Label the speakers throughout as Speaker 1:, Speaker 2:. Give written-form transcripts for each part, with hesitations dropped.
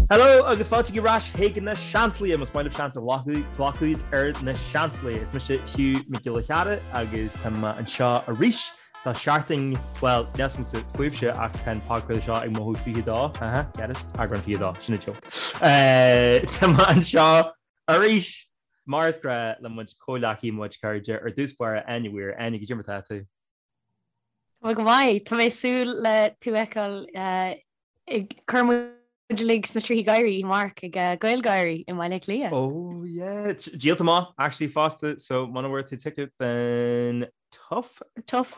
Speaker 1: Hello agus fáilte ar ais chuig na Seansálaithe, más maith libh seans a ghlacadh ar na Seansálaithe. Is mise Hugh Mac Giolla Chearra agus tá mé anseo arís do sheachtain, bhuel, níl 's agamsa fúibhse ach tá an podchraoladh seo ag mothú 22, aha, get it? Eagrán 22, sin an joke. Tá mé anseo arís mar is gnách le mo chuid comhghleacaithe, mo chuid cairde, ar dtús báire, Áine Weir. Áine, goidé mar tá tú?
Speaker 2: Tá mé go maith. Tá mé ag súil le tú a fheiceáil ag cur muid uilig sna tríthí gáirí amárach ag GaelGáirí i mBaile Átha Cliath.
Speaker 1: Oh yeah, díolta amach actually fosta, so muna bhfuair tú ticket then tough.
Speaker 2: Tough.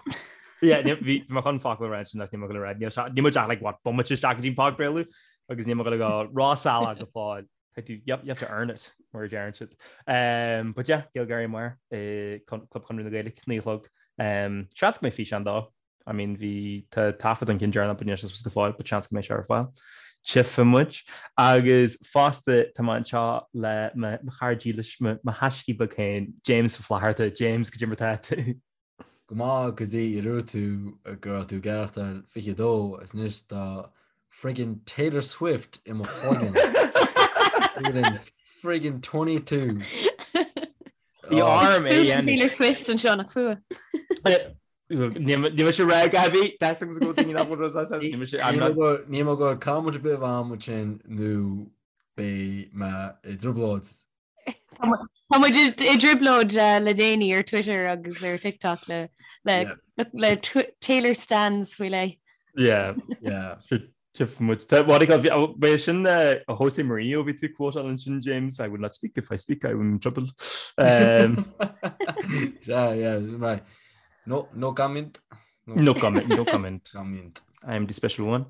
Speaker 1: Yeah, bhí mé chun focal a rá ansin ach níl mé ag gabháil a rá, níl muid ach like what, bomaite isteach go dtí an podchraoladh agus níl mé ag gabháil a dhul róshalach go fóill. Caithfidh tú, yep, you have to earn it, mar a deireann siad. Um, but yeah, GaelGáirí amárach i Club Chonradh na Gaeilge, 9 a chlog. Um, seans go mbeidh físeán dó. I mean, bhí tá taifead an cinn deireanach but níl sé suas go fóill, but seans go mbeidh sé ar fáil. Tchífidh muid. Agus fosta tá mé anseo le mo chara dílis, mo thaiscí beag féin, James Ó Flatharta. James, goidé mar tá tú?
Speaker 3: Go maith go dtí a dúirt tú go raibh tú ag aireachtáil 22 is anois tá friggin Taylor Swift i mo chloigeann. Friggin friggin 22.
Speaker 1: Bhí orm é a dhéanamh.
Speaker 2: Taylor Swift anseo nach fuath.
Speaker 1: Níl mise rá Gabi, tá a fhios agam go bhfuil daoine nach bhfuil rud as Níl mise I'm not
Speaker 3: Níl mé ag gabháil comment ar bith a bheith ansin nó beidh mé i dtrioblóid.
Speaker 2: Tá muid i dtrioblóid le déanaí ar Twitter agus ar TikTok le le Taylor Stans faoi leith.
Speaker 1: Yeah.
Speaker 3: Yeah.
Speaker 1: Tchífidh muid. Tá, what do you call, bhí sin Jose Mourinho bhí tú quote-áil ansin, James, I will not speak if I speak, I'm in trouble.
Speaker 3: Um, yeah, yeah, right. No, no comment.
Speaker 1: No, no comment, no comment.
Speaker 3: comment.
Speaker 1: I am the special one.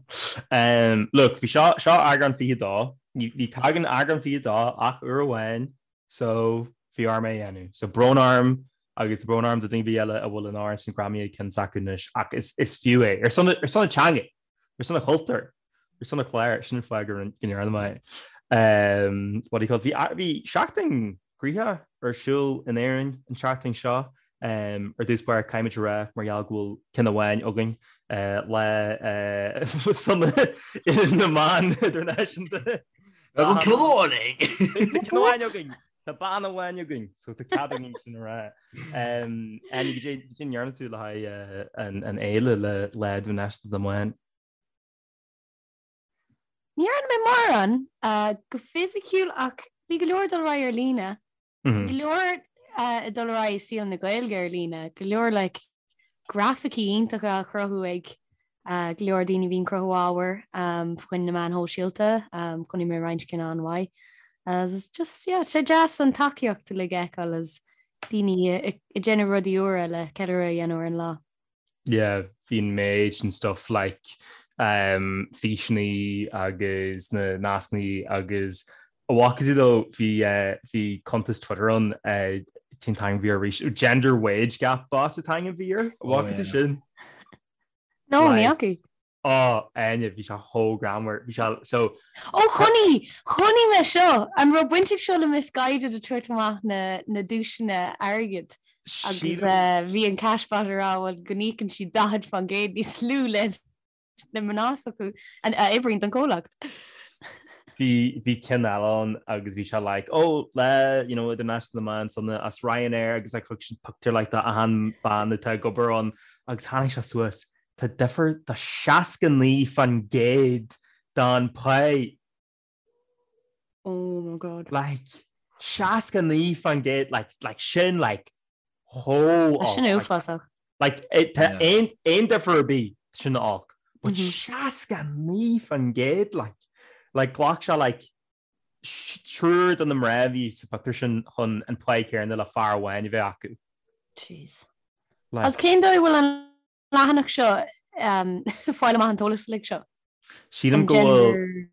Speaker 1: Um, look, bhí seo, seo eagrán 22, ní, ní tagann eagrán 22 ach uair amháin, so bhí orm é a dhéanamh. So brón orm agus brón orm do daoine eile a bhfuil an amhrán sin greamaithe ag ceann s'acu anois, ach is, is fiú é. Ar son, ar son na teanga! Ar son an chultúir, ar son an chláir, sin an fáth go ndearna mé é. What do you call it? Bhí, bhí seachtain ghnoitheach ar siúl in Éirinn an tseachtain seo. Ar dtús báire, caithfimid a rá, mar gheall go bhfuil ceann amháin againn, Lá Sona na mBan Idirnáisiúnta.
Speaker 3: Tá ceann amháin againn!
Speaker 1: Tá ceann amháin againn! Tá bean amháin againn, so tá cead againn sin a rá. Áine, goidé a ndearna tú le haghaidh an fhéile le Lá Idirnáisiúnta na mBan?
Speaker 2: Ní dhearna mé mórán go fisiciúil ach bhí go leor ag dul ar aghaidh ar líne. Go leor ag dul ar aghaidh i saol na Gaeilge ar líne, go leor like grafaicí iontacha á chruthú ag go leor daoine a bhíonn ag cruthú ábhair fá choinne na meáin shóisialta. Chonaic mé roinnt cinn an-mhaith. Agus just, yeah, sé deas an tacaíocht uilig a fheiceáil is daoine ag déanamh rudaí úra le ceiliúradh a dhéanamh ar an lá.
Speaker 1: Yeah, bhí an méid sin stuff like um, físeannaí agus na nascannaí agus an bhfaca tú though bhí uh, bhí cuntas Twitter ann uh, cén t-ainm a bhí air arís gender wage gap bot an t-ainm a bhí air
Speaker 3: Oh,
Speaker 1: an bhfaca tú
Speaker 3: yeah.
Speaker 1: sin?
Speaker 2: No, ní
Speaker 1: Like,
Speaker 2: fhaca.
Speaker 1: oh, Áine, bhí sé chomh greannmhar bhí sé so
Speaker 2: Ó chonaic, chonaic mé seo! An raibh baint ag seo le Missguided ag tabhairt amach na, na duaiseanna airgid agus
Speaker 1: sílim
Speaker 2: uh, bhí an cashbot ag rá bhuel go n-íocann siad 40% níos lú le na mná s'acu a oibríonn don chomhlacht.
Speaker 1: Bhí bhí ceann eile ann agus bhí sé like oh Lá you know Idirnáisiúnta na mBan sona as Ryanair agus like thug siad pictiúr like de achan bean atá ag obair ann agus tháinig sé suas tá difear de 69% don pá
Speaker 2: Oh my god.
Speaker 1: Like 69% like like sin like chomh
Speaker 2: Sin uafásach.
Speaker 1: Like tá aon aon difear ar bith sin olc. But 69% like like ghlac sé like triúr de na mná a bhí sa phictiúr sin chun an pá céanna le fear amháin a bheith acu.
Speaker 2: Jeez. Agus cén dóigh a bhfuil an leathanach seo ag fáil amach an t-eolas uilig seo?
Speaker 1: Sílim go bhfuil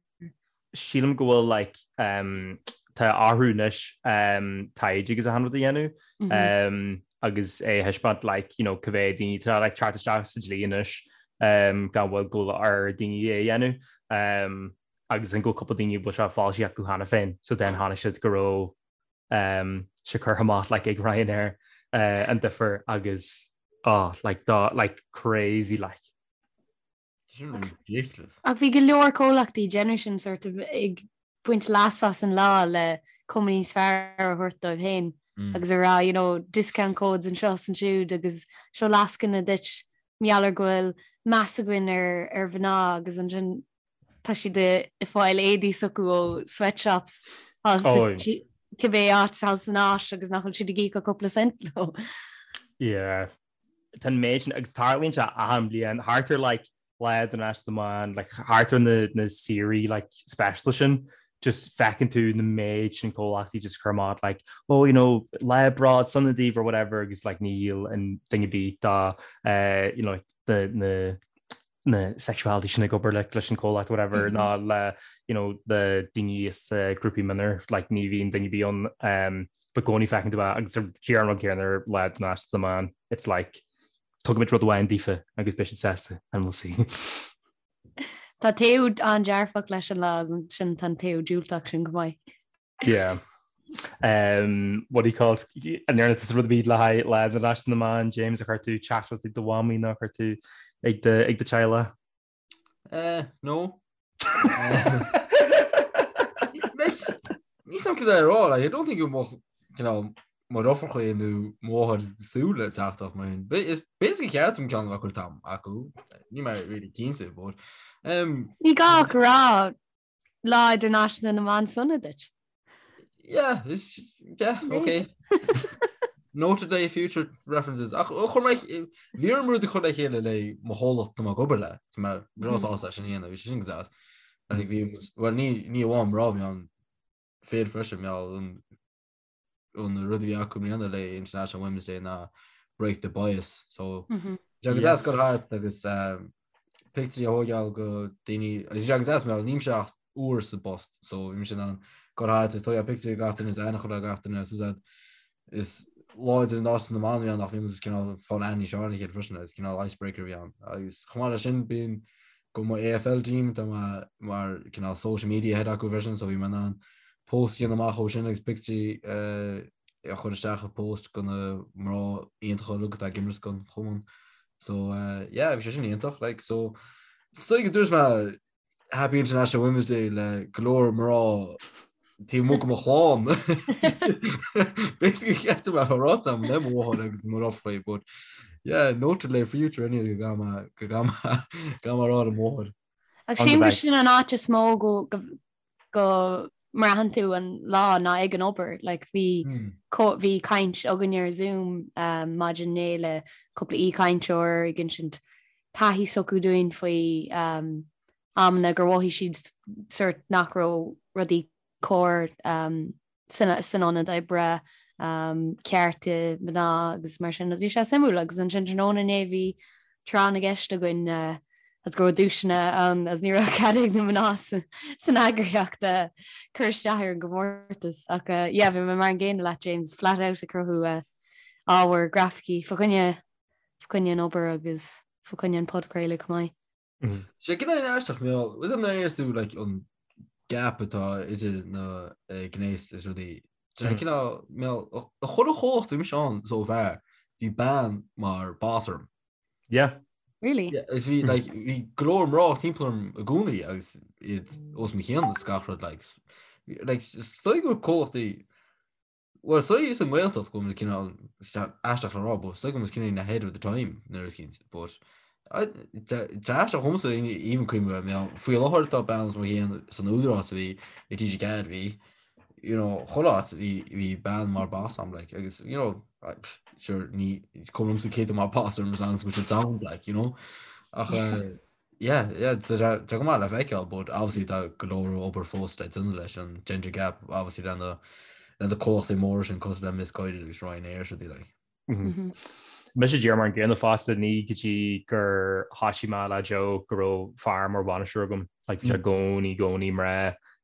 Speaker 1: sílim go bhfuil like um, tá orthu anois um, taighde agus achan rud a dhéanamh mm -hmm. um, agus é a thaispeáint like, you know, cá mhéad daoine tá like, teacht isteach sa dlí anois um, gan mhoill go bhfuil ar daoine é a dhéanamh um, agus an go cúpla daoine bhfuil sé foilsithe acu cheana féin so then tháinig siad go raibh um, sé curtha amach like, ag Ryanair uh, an difear agus oh, like, dá, like, crazy like.
Speaker 3: Sin ridiculous.
Speaker 2: Ach bhí go leor comhlachtaí ag déanamh sin sort of ag. baint leas as an lá le cuma níos fearr a thabhairt dóibh féin agus a rá, you know, discount codes anseo is ansiúd agus seo lascaine duit mar gheall ar go bhfuil meas againn ar ar mhná agus ansin tá siad ag fáil éadaí s'acu ó sweatshops cibé áit thall san Áis agus nach bhfuil siad ag íoc ach cúpla cent leo.
Speaker 1: Yeah. Tá an méid sin agus tarlaíonn sé achan bliain thart ar like Lá Idirnáisiúnta na mBan, like thart ar na na saoirí like speisialta sin, just feiceann tú na méid sin comhlachtaí just cur amach like oh you know lá bród sona daoibh or whatever agus like níl aon duine ar bith dá eh you know like the na na sexuality sin ag obair like leis an comhlacht whatever mm -hmm. ná le you know the daoine is uh, grúpaí mionúir like ní bhíonn duine ar bith ann um, but i gcónaí feiceann tú é agus ar díreach an rud céanna ar Lá Idirnáisiúnta na mBan it's like Tugaimid rud amháin daofa agus beidh siad sásta and we'll see.
Speaker 2: Tá taobh an-dearfach leis an lá sin tá an taobh diúltach sin go maith.
Speaker 1: Yeah. Um, what do you call it? An ndearna tusa rud ar bith le haghaidh Lá Idirnáisiúnta na mBan, James ar chuir tú teachtaireacht ag do mhamaí nó ar chuir tú ag do ag do teaghlach?
Speaker 3: Eh, no. Níl a fhios agam cad é a rá, like, I don't think go mbeadh, you know, mo dheirfiúracha nó mo mháthair ag súil le teachtaireacht mar sin. Is basically ceart dom ceann a bheith curtha acu, níl mé really cinnte, but
Speaker 2: um, Ní gá ach rá Lá Idirnáisiúnta na mBan sona duit.
Speaker 3: Yeah, yeah, okay. Noted le future references. Ach chuir mé bhí orm rud a chur le chéile le mo chomhlacht atá mé ag obair le. Tá mé breá sásta sin a dhéanamh, bhí sé sin go deas. Bhí well ní ní amháin mná bhí ann fir freisin mé an an rud a bhí acu i mbliana le International Women's Day ná break the bias. So mm -hmm. agus deas go thart agus um, pictiúirí a thógáil go daoine agus agus deas mé nílimse ach uair sa bpost so bhí mise in ann go thart is tógáil pictiúirí gach duine aithne a chur ar gach duine so that is Lá Idirnáisiúnta na mBan a bhí ann ach bhí muid cineál ag fáil aithne níos fearr ar a chéile freisin agus cineál icebreaker a bhí ann agus chomh maith leis sin bíonn go mo AFL team tá mé mar cineál social media head acu freisin so bhí mé in ann post a dhéanamh amach ó sin agus pictiúirí a chur isteach i post go na mná iontacha uilig atá ag imirt don chumann. So uh, yeah, bhí sé sin iontach like so so go dúirt mé Happy International Women's Day le go leor mná taobh amuigh de mo chlann. Basically ceart mé a rá am le mo mháthair agus mo dheirfiúracha, but yeah, noted le future anyway go gcaithfidh mé go gcaithfidh mé a rá le mo mháthair.
Speaker 2: Ach sílim gur sin an áit is mó go go mbraitheann tú an lá ná ag an obair. Like, bhí bhí caint againn ar Zoom um, maidin inné le cúpla aoichainteoir ag insint taithí s'acu dúinn faoi um, amanna gur mhothaigh siad sort nach raibh rudaí cóir um, san, san ionad oibre, um, cearta mná agus mar sin. Bhí sé suimiúil agus ansin tráthnóna inné bhí tráth na gceist againn uh, agus go raibh duaiseanna ann agus ní raibh cead ag na mná san eagraíocht uh, cur isteach ar an gcomórtas ach uh, yeah, bhí mé mar an gcéanna leat James flat out ag cruthú uh, ábhar grafaicí fa choinne fa choinne an obair agus fa choinne an podchraoladh chomh maith.
Speaker 3: Sé cineál aisteach mé is an éis tú like, an gap atá idir na gnéas is rudaí. Sé cineál mé a chuile chomhlacht bhí mise ann so far bhí bean mar boss orm.
Speaker 1: Yeah.
Speaker 2: Really?
Speaker 3: Yeah, is bhí like bhí go leor mná timpeall orm i gcónaí agus iad os mo chionn is gach rud like like is dóigh go comhlachtaí Bhuel, is dóigh sa nGaeltacht go bhfuil muid cineál aisteach le rá, but is dóigh go bhfuil muid cineál ahead of the time nuair is cinnte, but tá aisteach dhomsa even cuimhneamh air, mé faoi láthair tá bean os mo chionn san Údarás a bhí i TG4 bhí, you know, chuile áit bhí bhí bean mar boss a'm like agus you know, sure ní cuma liomsa cé tá mar boss orm as long as go bhfuil siad sound like, you know, ach eh, Yeah, yeah, tá sé go maith le feiceáil, but obviously tá go leor obair fós le déanamh leis an gender gap, obviously le na le na comhlachtaí móra sin cosúil le Missguided agus Ryanair is rudaí like.
Speaker 1: Mm-hmm. Mise díreach mar an gcéanna fosta ní go dtí gur thoisigh mé le Joe go raibh fear mar bhainisteoir agam, like bhí sé i gcónaí i gcónaí mná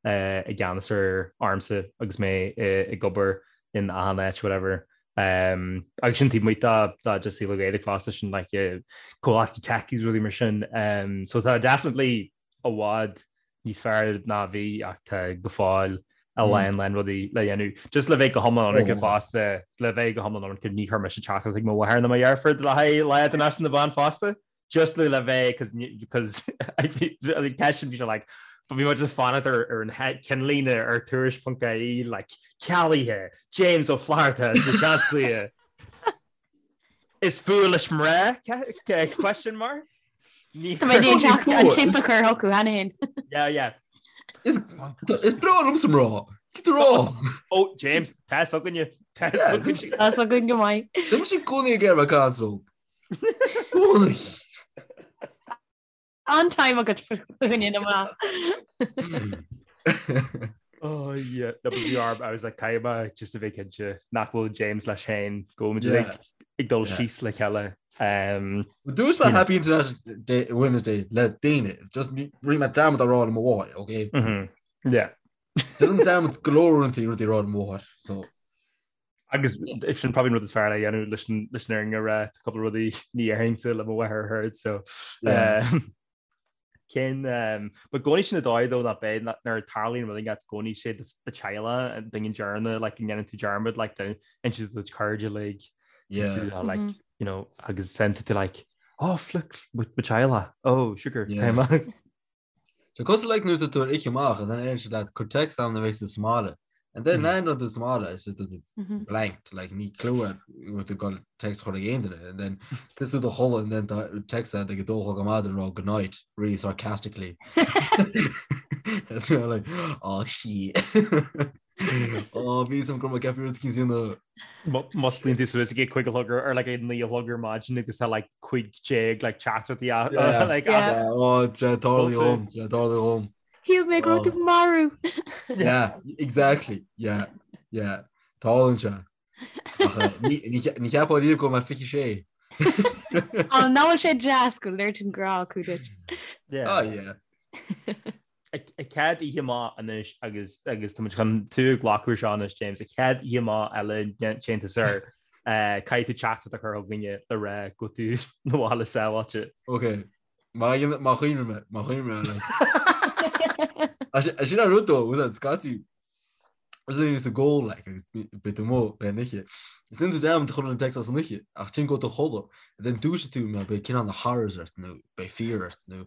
Speaker 1: eh, i gceannas ar ormsa agus mé eh, ag obair in achan áit whatever. Um, agus sin taobh amuigh de de just saol Gaeilge fosta sin like uh, comhlachtaí tech is rudaí mar sin. Um, so tá definitely i bhfad níos fearr ná bhí ach tá go fóill a lán lán rudaí le dhéanamh. Just le bheith go hiomlán ionraic fosta le bheith go hiomlán ionraic ní chuir mise teachtaireacht ag mo mháthair ná mo dheirfiúr le haghaidh Lá Idirnáisiúnta na mBan fosta. Just le le bheith because because ceist bhí sé like. But bhí muid ag fanacht ar ar an ceannlíne ar tuairisc.ie like cealaithe, James Ó Flatharta as na Seansálaithe. Is fuath leis mná? Question mark?
Speaker 2: Tá mé ag teacht an tip a chur chucu cheana féin.
Speaker 1: Yeah, yeah.
Speaker 3: Is breá liomsa mná. Cad tá rá?
Speaker 1: Ó, James, tá fhios againne. Tá fhios againne.
Speaker 2: Tá fhios againn go maith.
Speaker 3: Tá mise i gcónaí ag iarraidh caint leo. Cónaí.
Speaker 2: An-time agat faoine na mná.
Speaker 1: Oh yeah, no, but bhí orm, I was like caithfidh mé just a bheith cinnte nach bhfuil James leis féin go bhfuil muid Yeah. like, ag dul Yeah. síos le chéile.
Speaker 3: Um, Dúirt mé Happy International Day, Women's Day le daoine, just rinne mé dearmad a rá le mo mháthair, okay?
Speaker 1: mhm, Yeah.
Speaker 3: Déanaim dearmad go leor uaireanta rudaí a rá le mo mháthair, so
Speaker 1: Agus sin probably an rud is fearr le dhéanamh leis an leis an fhírinne a rá, tá cúpla rudaí ní dhéarfainnse le mo mháthair a heard, so
Speaker 3: Yeah.
Speaker 1: um, cén um, but i gcónaí sin an dóigh though nach beidh nuair a tarlaíonn rud éigin i gcónaí sé do teaghlach an duine deireanach like go ndéanann tú dearmad like do insint do do chairde like
Speaker 3: Yeah.
Speaker 1: tú, like mm -hmm. you know agus send tú like oh flick mo teaghlach oh sugar
Speaker 3: Yeah. So cosúil like nuair atá tú ar oíche amach and then deireann siad leat cuir text agam nuair a bheidh tú sa mbaile. And then landann tú sa mbaile it's just it's blanked like níl clue agat go bhfuil tú ag dul text a chur ag aon duine and then tá tú i do chodladh and then tá text agat ag a dó a chlog ar maidin ag rá good night really sarcastically. And so you're like oh shit. Oh bhí some go raibh mé ag ceapadh rud éicint a dhéanamh.
Speaker 1: Musclaíonn tú suas ag a cúig a chlog ar like a naoi a chlog ar maidin agus tá like 15 like teachtaireachtaí
Speaker 3: Yeah.
Speaker 1: like
Speaker 2: Yeah.
Speaker 3: as- Oh, tá tarlaithe dhom, tá tarlaithe dhom.
Speaker 2: Shíl mé go raibh tú marbh.
Speaker 3: Yeah, exactly. Yeah, yeah. Tarlaíonn sé. Ach, eh, ní ní che- ní cheapfá riamh go mbeadh 26.
Speaker 2: Á, nach bhfuil sé deas go léiríonn grá acu duit.
Speaker 1: Yeah.
Speaker 3: Oh, yeah.
Speaker 1: An chéad oíche amach anois agus agus tá muid chun tú a ghlacadh seo anois James, an chéad oíche amach eile téann tú soir caithfidh tú teachtaireacht a chur chugainne le rá go bhfuil tú na bhaile sábháilte.
Speaker 3: Ok, má má chuimhním mé, má chuimhním mé Sin an rud though, was scaití Is é is ag ól like agus beidh tú amuigh le an oíche. Is déanann tú dearmad a chur an text as an oíche ach ansin go bhfuil tú a chodladh and then dúiseoidh tú mar beidh cineál na horrors ort nó beidh fear ort nó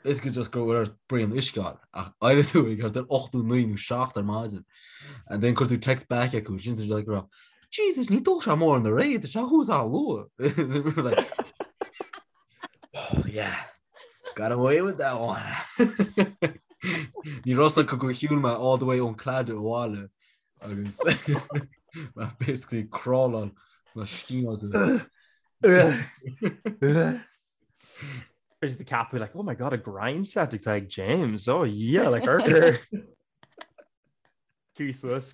Speaker 3: basically just go bhfuil ort braon uisce a fháil ach éireoidh tú ag thart ar 8 nó 9 nó 7 ar maidin and then cuir tú text back acu sin tú like rá Jesus ní dó sé mór na réad tá sé thuas an-luath. Like, Oh yeah, got away with that one. Ní raibh a fhios acu gur shiúil mé all the way ón Claddagh abhaile agus mé basically crawláil mé stímáilte.
Speaker 1: Is the cap be like, oh my god, a grind set ag James. Oh yeah, like urchar. Suas,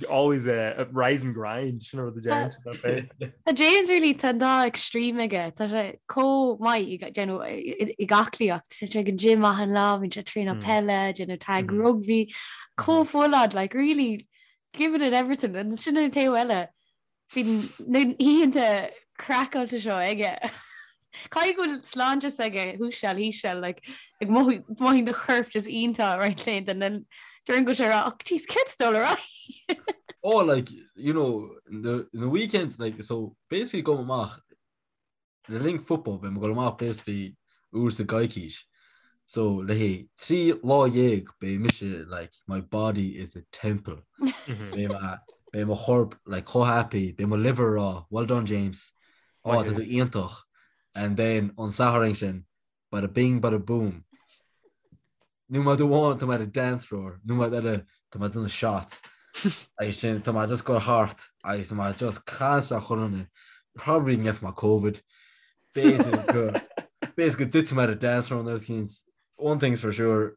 Speaker 1: always a rise and grind sin rud a James
Speaker 2: Tá James really tá an dá extreme aige Tá sé chomh maith ag aclaíocht tá sé ag an gym achan lá bíonn sé traenáil peile déanamh tag rugby chomh full on like really giving it everything and sin an taobh eile Bíonn na hoícheanta craiceáilte seo aige. Caithfidh go bhfuil sláinte s'aige thuas seal thíos seal like ag mothaíonn do chorp just iontach roinnt laethanta and then during go sé rá oh jeez céard dul ar aghaidh.
Speaker 3: Oh like you know the the weekends like so basically gabhaim amach Le linn football beidh mé ag dul amach basically uair sa gcoicís so le haghaidh 13 lá beidh mise like my body is a temple. Beidh mé beidh mo chorp like chomh happy beidh mo liver ag rá well done James oh tá tú iontach and then an Satharn sin bada bing bada boom Nóiméad amháin tá mé ar an dance floor, nóiméad eile tá mé ag déanamh shots. Agus sin tá mé just ag dul thart agus tá mé just caint le chuile dhuine. Probably ngeobhaidh mé Covid. B'fhéidir go b'fhéidir go dtitfidh mé ar an dance floor nó things. One thing's for sure,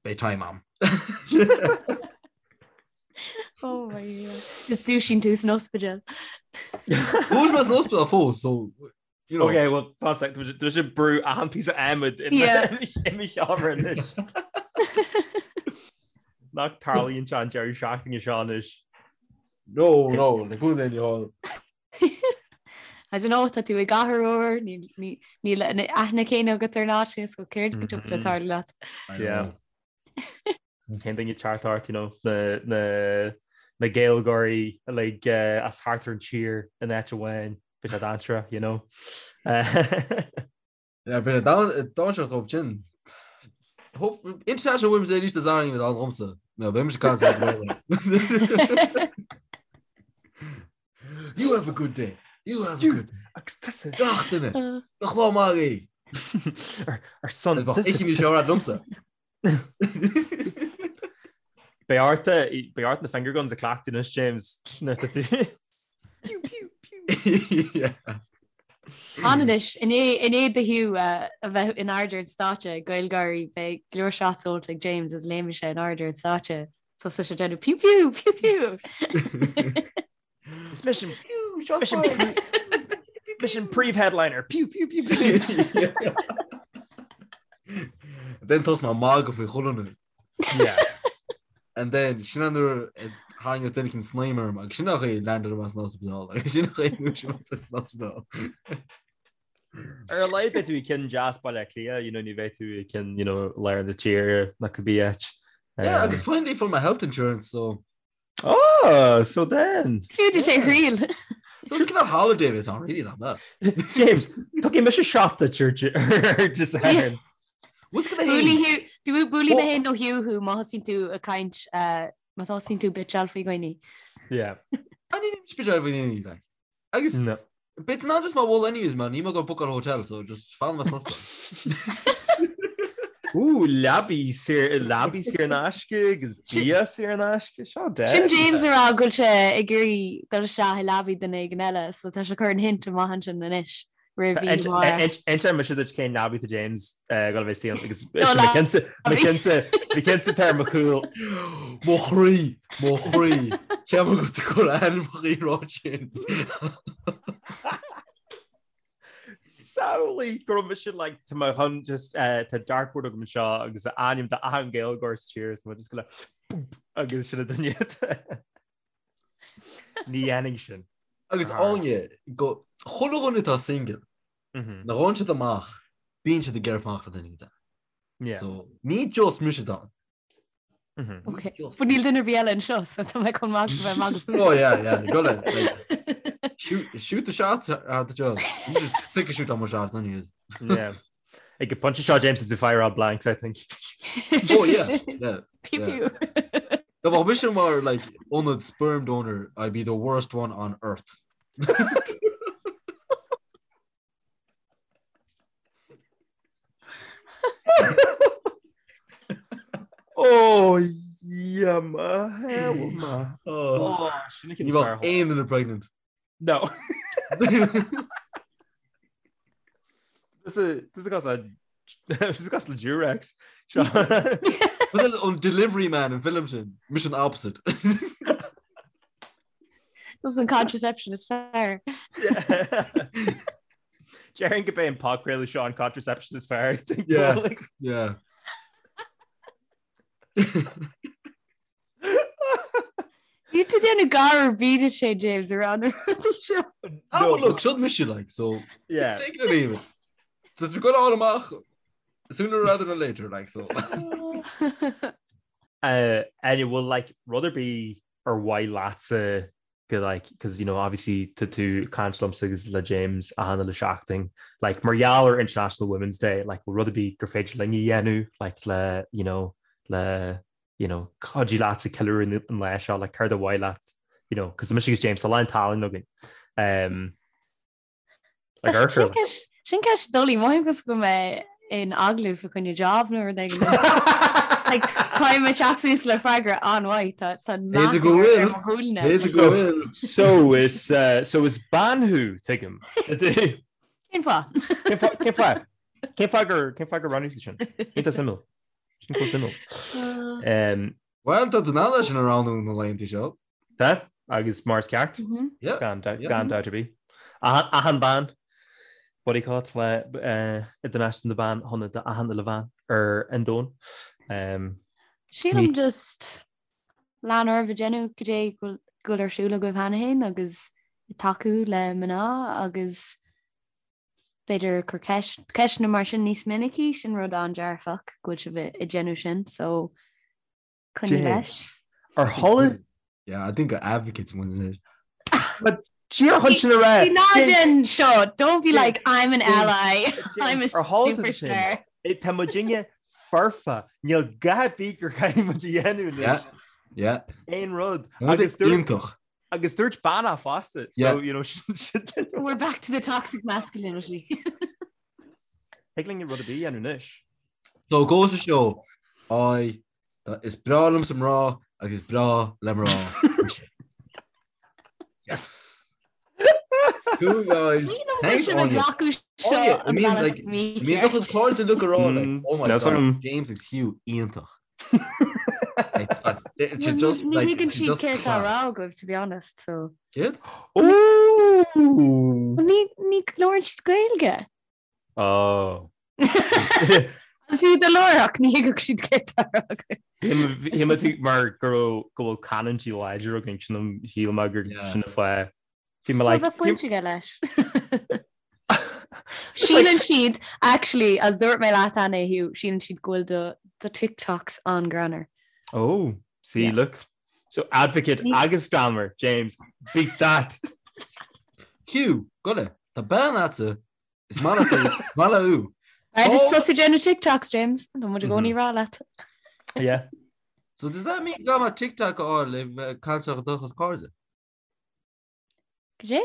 Speaker 3: beidh time a'm.
Speaker 2: Oh my God. Just dúisíonn tú san ospidéal.
Speaker 3: Bhfuil mé san ospidéal fós, so
Speaker 1: You know. Okay, well, fan sec, tá sé brú achan píosa adhmaid i mo sheomra anois. Nach tarlaíonn sé an deireadh seachtaine seo anois.
Speaker 3: No, no, le cúl aon hall.
Speaker 2: I don't know, tá tú i gcathair úr, níl an aithne céanna agat ar an áit so céard go dtiocfadh le tarlú leat.
Speaker 1: Yeah. Cén duine teacht ort, you know, na, na, na Gaeilgeoirí like, uh, as thart ar an tír in áit amháin, bhí sé dainséarach, you know.
Speaker 3: Yeah, bhí sé dainséarach dóibh sin. Hope International Women's Day arís is airím an dhomsa. No, beidh mise caint le You have a good day. You have a good day.
Speaker 1: Agus tusa.
Speaker 3: Gach duine. Gach lá maith é.
Speaker 1: Ar son.
Speaker 3: Ichi mí seo liomsa.
Speaker 1: Beidh ort beidh ort na finger guns a chleachtadh anois James nuair atá tú. Pew pew
Speaker 3: pew. Yeah.
Speaker 2: Anois i ndiaidh do Hugh a bheith in airde ar an stáitse ag GaelGÁIRÍ beidh go leor shots ólta ag James is léimfidh sé in airde ar an stáitse so sé déanamh pew pew pew pew.
Speaker 1: Is mise an mise an príomh-headliner pew pew pew pew.
Speaker 3: Then tosóidh mé ag magadh faoi chuile dhuine.
Speaker 1: Yeah.
Speaker 3: And then sin an nuair a tharraingeos duine éicint snaidhm orm agus sin an chaoi a landed mé san ospidéal agus sin an chaoi a ndúisigh mé san ospidéal.
Speaker 1: Ar a laghad beidh tú i gceann deas Baile Átha Cliath, you know, ní bheidh tú i gceann, you know, lár na tíre ná cibé áit.
Speaker 3: Yeah, agus finally fuair mé health insurance, so
Speaker 1: Oh, so then.
Speaker 2: Fiú duit é a thriail.
Speaker 3: So it's kind of holiday it's not really that bad.
Speaker 1: James, tuigim mise shot duit ar just Satharn.
Speaker 3: What's gonna happen?
Speaker 2: Buailfidh mé féin nó Hugh thú má thosaíonn tú ag caint má thosaíonn tú bitseáil faoi dhaoine.
Speaker 1: Yeah.
Speaker 3: I need to bitch out faoi dhaoine like. Agus
Speaker 1: No.
Speaker 3: bit not just my wall anyways man, níl mé ag goil bookáil hotel so just fan mé san ospidéal.
Speaker 1: Ooh, leabaí saor leabaí saor in aisce agus bia saor in aisce seo de.
Speaker 2: Sin James ag rá go bhfuil sé ag iarraidh dul isteach i leabaí duine éigin eile so tá sé ag cur an hint amach ansin anois roimh mhí Mháire.
Speaker 1: Inseoidh mise duit cén leabaí tá James ag goil a bheith istigh ann agus
Speaker 2: No,
Speaker 1: mo chinnse mo chinnse tá ar mo chúl.
Speaker 3: Mo chroí, mo chroí, Ceapaim go bhfuil tú ag cur ainmneacha rá sin.
Speaker 1: Samhlaigh go raibh mise like tá mé chun just eh, tá dartboard agam anseo agus ainm de achan Gaeilgeoir sa tír is tá mé just go le boop, agus sin an duine. Ní dhéanfaidh sin.
Speaker 3: Agus Áine, go chuile dhuine atá single,
Speaker 1: Mhm.
Speaker 3: nuair a ghabhann siad amach, bíonn siad ag iarraidh fanacht le duine éigin.
Speaker 1: Yeah.
Speaker 3: So, ní just mise atá ann.
Speaker 1: Mhm.
Speaker 2: Ok. But níl duine ar bith eile anseo, so tá mé chun maith bheith magadh fút.
Speaker 3: Oh yeah, yeah, go le. Like, shoot, shoot the shot at the job. I'm just sick of shoot on my shots anyways.
Speaker 1: Yeah. Ag an bpointe seo James is to fire out blanks, I think.
Speaker 3: Oh yeah, yeah.
Speaker 2: Pew
Speaker 3: yeah.
Speaker 2: pew.
Speaker 3: Dá mbeadh mise mar like ionad sperm donor, I'd be the worst one on earth.
Speaker 1: Oh, yeah, ma, hell, ma.
Speaker 3: Oh,
Speaker 1: Oh, sin
Speaker 3: ní bheadh aon duine pregnant.
Speaker 1: No. This is this is cos this is cos le Durex.
Speaker 3: But then an delivery man an film sin, mise an opposite.
Speaker 2: Tusa an contraception is fearr.
Speaker 1: Déarfainn gurb é an podchraoladh seo an contraception is fearr.
Speaker 3: Yeah. Yeah.
Speaker 2: Níl tú déanamh gar ar bith duit féin James ar an rudaí seo.
Speaker 3: Ah, well, look, seo mise like, so
Speaker 1: Yeah.
Speaker 3: take it or leave it. Tá tú gonna fháil amach sooner rather than later, like, so.
Speaker 1: Uh, and bhfuil like rud ar bith ar mhaith leatsa go like because you know obviously tá tú ag caint liomsa agus le James achan uile seachtain like mar gheall ar International Women's Day like bhfuil rud ar bith gur féidir linn a dhéanamh like le you know le you know cuidiú leatsa ceiliúradh an lá seo like céard ar mhaith leat you know because mise agus James tá a lán tallann againn um,
Speaker 2: Like Sin ceist sin ceist doiligh mothaím cosúil go mbeidh mé in agallamh fá choinne job nó rud éigin. Like caithfidh mé teacht suas le freagra an-mhaith tá tá
Speaker 3: B'fhéidir go bhfuil.
Speaker 2: ar mo shúile.
Speaker 3: B'fhéidir go bhfuil.
Speaker 1: So is uh, so is bean thú tuigim.
Speaker 2: Cén fáth?
Speaker 1: Cén fáth cén fáth cén fáth gur cén fáth gur roghnaigh tú sin? Iontach suimiúil. Sin chomh suimiúil. Um,
Speaker 3: Well, tá tú in ann é sin a roghnú na laethanta seo.
Speaker 1: Tá, agus mar is ceart.
Speaker 3: Yeah.
Speaker 1: Gan
Speaker 3: Yeah.
Speaker 1: gan dabht ar bith. Achan achan bean, what do you call it, le uh, Idirnáisiúnta na mBan shona d'achan uile bhean ar an domhan. Um,
Speaker 2: Sílim just lean oraibh ag déanamh cad é go bhfuil go bhfuil ar siúl agaibh cheana féin agus ag tacú le mná agus b'fhéidir cur ceist ceisteanna mar sin níos minicí, sin rud an-dearfach go bhfuil sibh ag déanamh sin, so Coinnigh leis.
Speaker 1: Ar tharla?
Speaker 3: Yeah, I think advocates ones it.
Speaker 1: But díreach chun sin a rá.
Speaker 2: Bí ná déan seo, don't be like I'm an ally, I'm a superstar.
Speaker 1: Tá muidinne foirfe. Níl a dhath ar bith gur chaithfidh muid a dhéanamh anois.
Speaker 3: Yeah.
Speaker 1: Aon rud.
Speaker 3: Agus iontach.
Speaker 1: Agus dúirt bean é fosta. So, you know, sin
Speaker 2: We're back to the toxic masculinity.
Speaker 1: Thig linn rud ar bith a dhéanamh anois.
Speaker 3: So goes to show, I is breá liomsa mná agus is breá le mná. Yes! Cool guys.
Speaker 2: Thanks Áine.
Speaker 3: I mean like bíonn do chuid cairde uilig ag rá like oh my god James agus Hugh iontach.
Speaker 2: Ní thuigeann siad céard tá á rá agaibh to be honest so.
Speaker 3: Céard?
Speaker 1: Ooh!
Speaker 2: Ní ní labhrann siad Gaeilge.
Speaker 1: Oh.
Speaker 2: Agus fiú dá labhródh ní thuigfeadh siad céard tá á rá
Speaker 1: agaibh. Shíl mé tú mar go raibh go bhfuil canúintí láidir againn sin an shíl mé gur sin an fáth.
Speaker 2: Bhí mé like. Bheadh baint aige leis. Síleann siad, actually, as dúirt mé leat cheana, Hugh, síleann siad go bhfuil do do TikToks an-ghreannmhar.
Speaker 1: Oh, see, yeah. look. So advocate agus greannmhar, James, beat that.
Speaker 3: Hugh, gura, tá bean agat is maith maith léi.
Speaker 2: B'fhearr duit tosú ag déanamh TikToks, James, tá muid i gcónaí ag rá leat.
Speaker 1: Yeah.
Speaker 3: So does that mean go mbeidh TikTok a fháil le bheith caint le do chuid cairde?
Speaker 2: Cad é?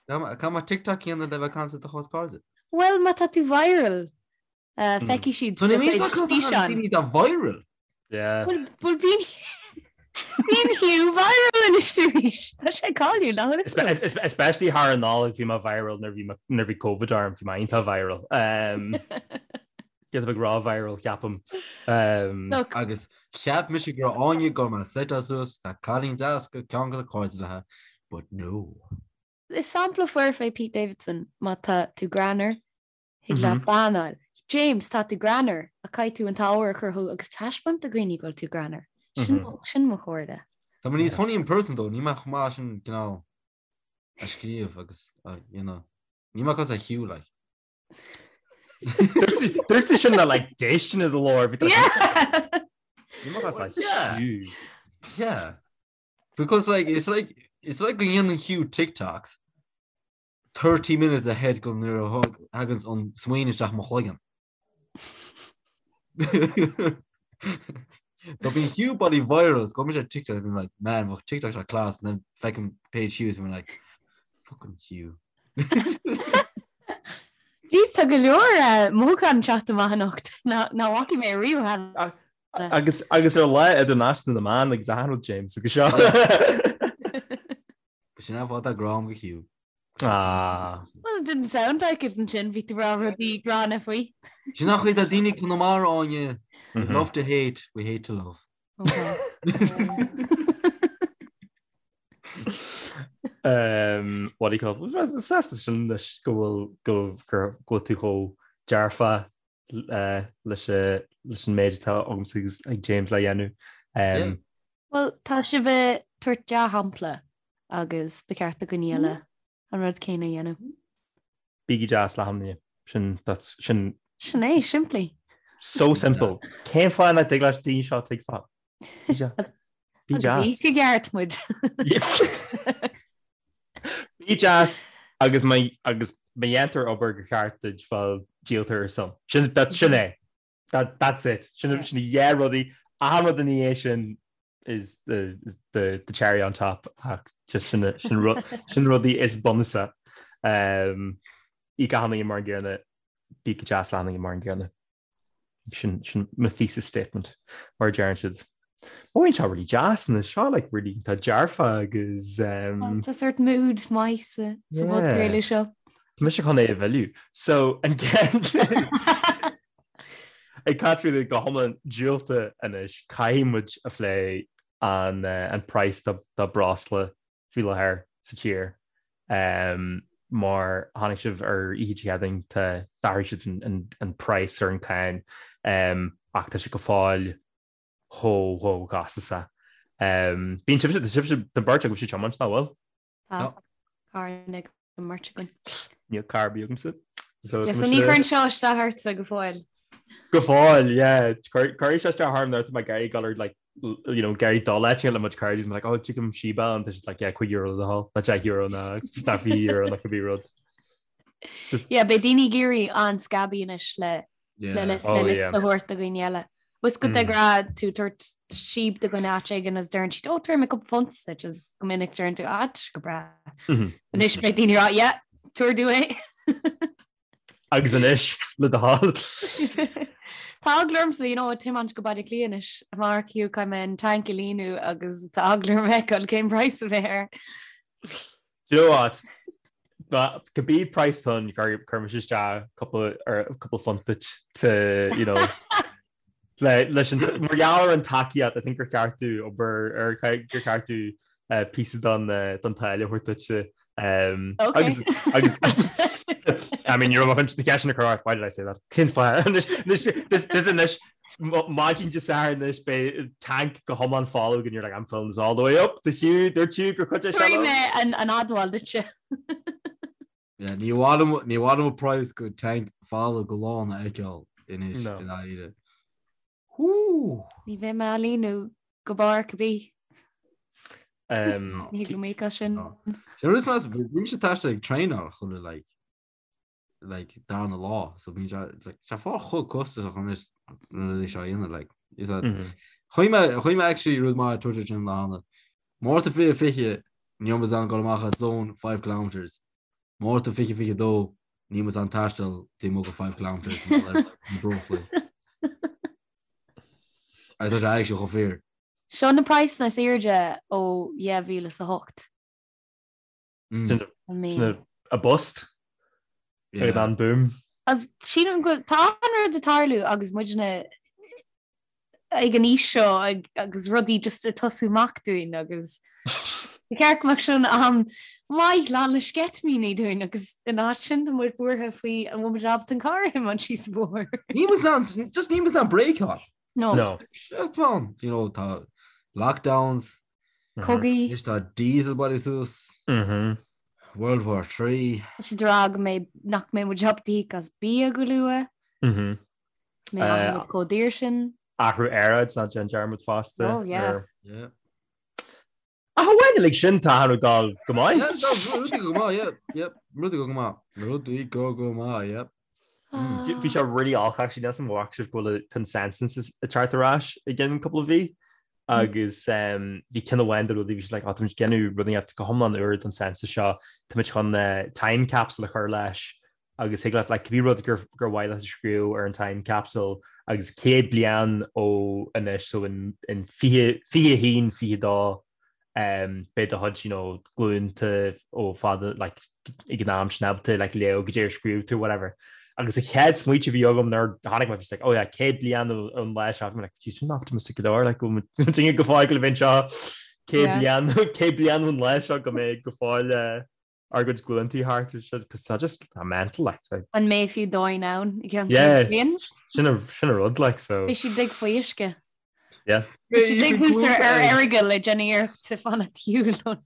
Speaker 3: Caithfidh mé TikTok a dhéanamh le bheith caint le do chuid cairde?
Speaker 2: Bhuel, má tá tú viral, feicfidh siad
Speaker 3: do chuid físeán. Ní tá viral.
Speaker 1: Yeah.
Speaker 2: Bhuel, bíonn bíonn Hugh viral anois arís. Tá sé cáiliúil, nach bhfuil
Speaker 1: a fhios agat? Especially thar an Nollaig bhí mé viral nuair bhí nuair bhí Covid orm, bhí mé iontach viral. Get a big raw viral ceapaim.
Speaker 2: Look.
Speaker 3: Agus cheap mise go raibh Áine go mbeadh set suas tá cailín deas go ceann de na cairde léi, but no.
Speaker 2: Is sampla foirfe é Pete Davidson má tá tú greannmhar, thig leat bean a fháil. James, tá tú greannmhar, ach caithfidh tú an t-ábhar a chruthú agus taispeáint do dhaoine go bhfuil tú greannmhar. Sin sin mo chomhairle.
Speaker 3: Tá mé níos funny in person though, níl mé chomh maith sin cineál a scríobh agus a dhéanamh. Níl mé cosúil le Hugh like.
Speaker 1: Dúirt tú sin le like déistin i do ghlór.
Speaker 2: Yeah.
Speaker 3: Yeah. Because like it's like it's like go ndéanann Hugh TikToks 30 minutes ahead go nuair a thagann an smaoineamh isteach mo chloigeann. So bíonn Hugh bloody viral, go mbíonn sé TikTok and like, man, bheadh TikTok seo class and then feicim page Hugh and I'm like, fucking Hugh.
Speaker 2: Jeez, tá go leor eh, mothúchán ag teacht amach anocht nach bhfaca mé riamh cheana.
Speaker 1: Agus agus ar Lá Idirnáisiúnta na mBan agus achan rud James agus seo.
Speaker 3: Sin an fáth tá grá agam do Hugh.
Speaker 1: Ah.
Speaker 2: Well, it didn't sound like it ansin, bhí tú ag rá rudaí gránna faoi.
Speaker 3: Sin an chaoi atá daoine Conamara Áine. We love to hate, we hate to love.
Speaker 2: Okay.
Speaker 1: Um, what do you call it? Sásta sin leis go bhfuil go gur go bhfuil tú chomh dearfa uh, leis uh, leis an méid atá agamsa agus ag James le dhéanamh. Um,
Speaker 2: Well, tá sibh ag tabhairt dea-shampla agus ba cheart do dhaoine eile an rud céanna a dhéanamh.
Speaker 1: Bígí deas le achan duine. Sin, that's, sin.
Speaker 2: Sin é, simplí.
Speaker 1: So simple. Cén fáth nach dtig leis daoine seo tuigbheáil? Bí deas. Bí deas.
Speaker 2: Agus íoc i gceart muid.
Speaker 1: Bí deas agus má agus má dhéantar obair go ceart duit bhuel díoltar ar son. Sin, that, sin é. That, that's it. Sin, sin na rudaí. Achan rud ina dhiaidh sin is the, is the, the cherry on top ach just sin, sin, ru, sin rudaí is bunúsaí. Um, íoc achan duine mar an gcéanna, bí go deas le achan duine mar an gcéanna. Sin, sin mo thesis statement mar a deireann siad. Bíonn seo really deas na seo like really tá dearfa agus um,
Speaker 2: Tá sort mood maith sa sa bpodchraoladh seo.
Speaker 1: Tá mise chun é a mhilleadh. So an Ag caint faoi go hiomlán diúltach anois, caithfidh muid a phlé an an praghas do breosla faoi láthair sa tír. Mar chonaic sibh ar oíche Dé Céadaoin tá d'athraigh siad an praghas ar an cáin ach tá sé go fóill chomh chomh costasach. Bíonn sibhse, tá sibhse, tá beirt agaibhse ag tiomáint, nach bhfuil?
Speaker 2: Tá carr ag an mbeirt againn.
Speaker 1: Níl carr ar bith agamsa.
Speaker 2: So yeah, so ní chuireann seo isteach ortsa go fóill.
Speaker 1: Go fóill, yeah. Cuirfidh sé isteach orm nuair atá mé ag iarraidh dul ar like you know, ag iarraidh dul áit le mo chuid cairde, like, oh, tuigim síba an tá siad like, yeah, €5 le do thoil, ná €10 ná ná €20 ná cibé rud.
Speaker 2: Just... Yeah, beidh daoine ag éirí an-scabby anois le. Le lift oh, le lift a thabhairt do dhaoine eile. Was go de ghnáth tú tabhairt síob do dhuine áit éigin is deireann siad ó tabharfaidh mé cúpla punt duit is go minic deireann tú ah go breá. Anois beidh daoine ag rá yeah, tabhair domh é.
Speaker 1: Agus anois le do thoil.
Speaker 2: Tá eagla ormsa you know, tiomáint go Baile Átha Cliath anois amárach fiú caithfidh mé an tank a líonadh agus tá eagla orm a fheiceáil cén praghas a bheidh air.
Speaker 1: Do you know what? Cibé price atá ann cuirfidh mise isteach cúpla ar cúpla phunt duit to you know le leis an mar gheall ar an tacaíocht I think gur cheart domh obair ar gur cheart domh eh, píosa don eh, don táille a thabhairt duitse um,
Speaker 2: Okay.
Speaker 1: agus agus I mean you're chun na ceisteanna a chur ort why did I say that? Cén fáth? Anois anois this this anois maidin Dé Sathairn anois beidh tank go hiomlán folamh and you're like I'm filling this all the way up to Hugh dúirt Hugh gur chuid é seo
Speaker 2: Tabharfaidh mé an an admháil duitse.
Speaker 3: Yeah, ní mhaith liom ní mhaith liom an praghas go tank folamh go lán a fheiceáil anois
Speaker 1: No.
Speaker 3: i ndáiríre. Hú!
Speaker 2: Ní bheidh mé á líonadh go barr cibé.
Speaker 1: Um,
Speaker 2: Ní thig liom íoc as sin.
Speaker 3: No. Sin rud is measa, bímse ag taisteal ag traenáil chuile like like darna lá so bíonn sé like sé fá chomh costasach anois na rudaí seo a dhéanamh like is that
Speaker 1: Mhm.
Speaker 3: Chuaigh mé chuaigh mé actually rud maith Twitter sin lá cheana. Márta 2020 ní raibh muid in ann dul amach as zone 5 kilometres. Márta 2022 níl muid in ann taisteal taobh amuigh de 5 kilometres mar gheall ar na breoslaí. Agus tá sé actually chomh fíor.
Speaker 2: Seo na praghsanna is airde ó 2008.
Speaker 3: Mm.
Speaker 2: I mean.
Speaker 1: A bust
Speaker 3: Yeah.
Speaker 1: ag an boom.
Speaker 2: As sílim go bhfuil tá an rud ag tarlú agus muidne ag an aois seo ag, agus rudaí just ag tosú amach dúinn agus ba cheart go mbeadh sin am maith lán le sceitimíní dúinn agus in áit sin tá muid buartha faoi an bhfuil muid ábalta an carr a thiomáint síos an bóthar.
Speaker 3: Níl muid in ann just níl muid in ann bréiceáil.
Speaker 2: No.
Speaker 1: No.
Speaker 3: Shit man, you know, tá lockdowns,
Speaker 2: Cogaí.
Speaker 3: Anois tá diesel bailithe suas.
Speaker 1: Mhm.
Speaker 3: World War 3.
Speaker 2: Tá siad ag rá go mbeidh nach mbeidh muid ábalta íoc as bia go luath.
Speaker 1: Mhm.
Speaker 2: Mbeidh
Speaker 1: Eh,
Speaker 2: muid chomh daor sin.
Speaker 1: Athrú aeráid ná déan dearmad fosta.
Speaker 2: Oh, yeah.
Speaker 1: ar-
Speaker 3: Yeah.
Speaker 1: Ach amháin like sin tá ag gabháil go maith.
Speaker 3: Yeah, no, rudaí go maith, yeah, yep, rudaí go maith. Rudaí go go maith, yep.
Speaker 2: Ah.
Speaker 1: Bhí sé really olc actually níl 's a'm an bhfaca sibh go bhfuil an census ag teacht ar ais i gceann cúpla mhí agus bhí ceann amháin de rudaí bhí siad like oh táimid ag déanamh rud inteacht go hiomlán úr don census seo táimid chun time capsule a chur leis agus thig leat like cibé rud gur gur mhaith leat a scríobh ar an time capsule agus 100 bliain ó anois so in in 20 21 22 beidh do chuid you know glúnta ó fada like ag an am sin ábalta like léamh goidé ar scríobh tú whatever. Agus an chéad smaointe a bhí agam nuair a tháinig mé bhí like oh yeah 100 bliain ón lá seo bhí mé like geez sin optimistic go leor like go bhfuil muid go fóill le bheith anseo 100 bliain 100 bliain ón lá seo go mbeidh go fóill eh, ár gcuid glúntaí thart ar siad cos tá just tá mental like tá
Speaker 2: An mbeidh fiú domhan ann i gceann
Speaker 1: Yeah.
Speaker 2: 100 bliain?
Speaker 1: sin a sin a rud like so
Speaker 2: Beidh siad uilig faoi uisce.
Speaker 1: Yeah.
Speaker 2: Beidh siad uilig thuas ar ar Errigal ag déanamh iarracht fanacht ar shiúl ón.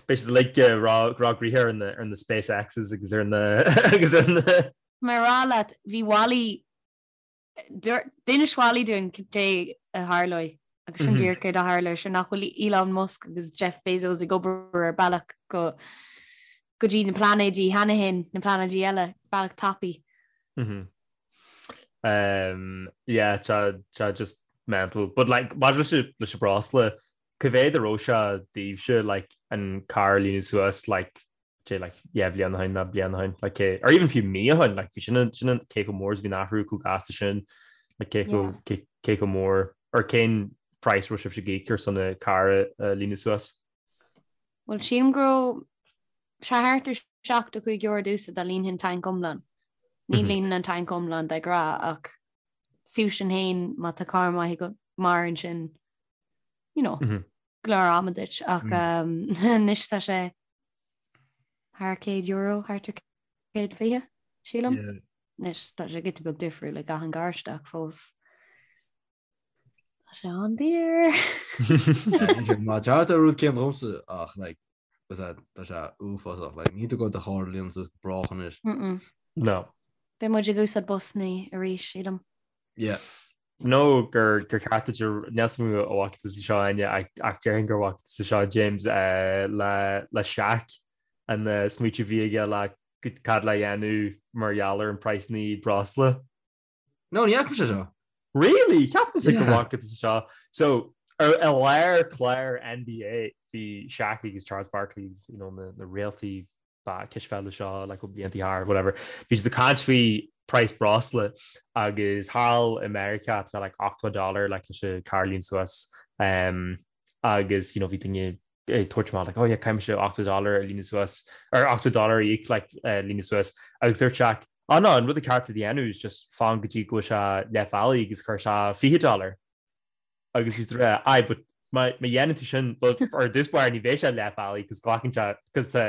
Speaker 1: Beidh siad like eh, rá rá gnoithe ar na ar na SpaceXes agus ar na agus ar na
Speaker 2: Mar rá leat bhí Wally D'inis Wally dúinn cad é a tharlóidh agus sin díreach céard a tharla sure nach bhfuil Elon Musk agus Jeff Bezos ag obair ar bealach go go dtí na pláinéidí cheana féin, na pláinéidí eile, bealach tapaidh.
Speaker 1: Um, yeah, tá tá just mental. But like, maidir leis an- leis an breosla, cá mhéad a raibh sé daoibhse like, an carr a líonadh suas like, sé like yeah bliain ó shin nó bliain ó shin like cé or even fiú mí ó shin like bhí sin an sin an cé chomh mór is bhí an athrú chomh gasta sin like cé chomh cé cé chomh mór or cén price raibh sibhse ag íoc ar son an carr a a líonadh suas?
Speaker 2: Bhuel sílim go raibh sé thart ar €75 domhsa dá líonfainn tanc iomlán. Ní líonaim an tanc iomlán de ghnáth ach fiú sin féin má tá carr maith agat maireann sin you know, go leor ama duit ach anois tá sé thar €100, thart ar 120, sílim. Anois tá sé giota beag difriúil ag achan garáiste ach fós tá sé an-daor.
Speaker 3: Má thart ar rud céanna dhomsa ach like tá sé uafásach like níl tú ag goil do charr a líonadh suas go brách anois.
Speaker 1: No.
Speaker 2: Beidh muid ag úsáid busanna arís, sílim.
Speaker 3: Yeah.
Speaker 1: nó gur gur ceart duit níl 's a'm an bhfaca tusa seo Áine ach déarfainn gur bhfaca tusa seo James le le Shaq an smaoitiú a bhí aige le cad le dhéanamh mar gheall ar an praghsanna breosla?
Speaker 3: No, ní fhaca mise seo.
Speaker 1: Really? Ceapaimse go bhfaca tusa seo. So, ar i lár clár NBA bhí Shaq agus Charles Barkley you know, na, na réaltaí ba cispheile seo like, ó blianta thart, whatever. Bhí siad ag caint faoi praghas breosla agus thall i Meiriceá tá like 80 dollar like, leis an carr a líonadh suas um, agus you know, bhí duine ag tabhairt amach like, oh yeah, caithfidh mise 80 dollar a líonadh suas or 80 dollar a íoc like, uh, líonadh suas agus dúirt Shaq Ah no, an rud is ceart a dhéanamh is just fan go dtí go bhfuil sé leath bealaigh agus cuir isteach 20 dollar. Agus bhí siad ag rá, aye, but má má dhéanann tú sin, well, ar dtús báire ní bheidh sé leath bealaigh cos glacann sé, cos tá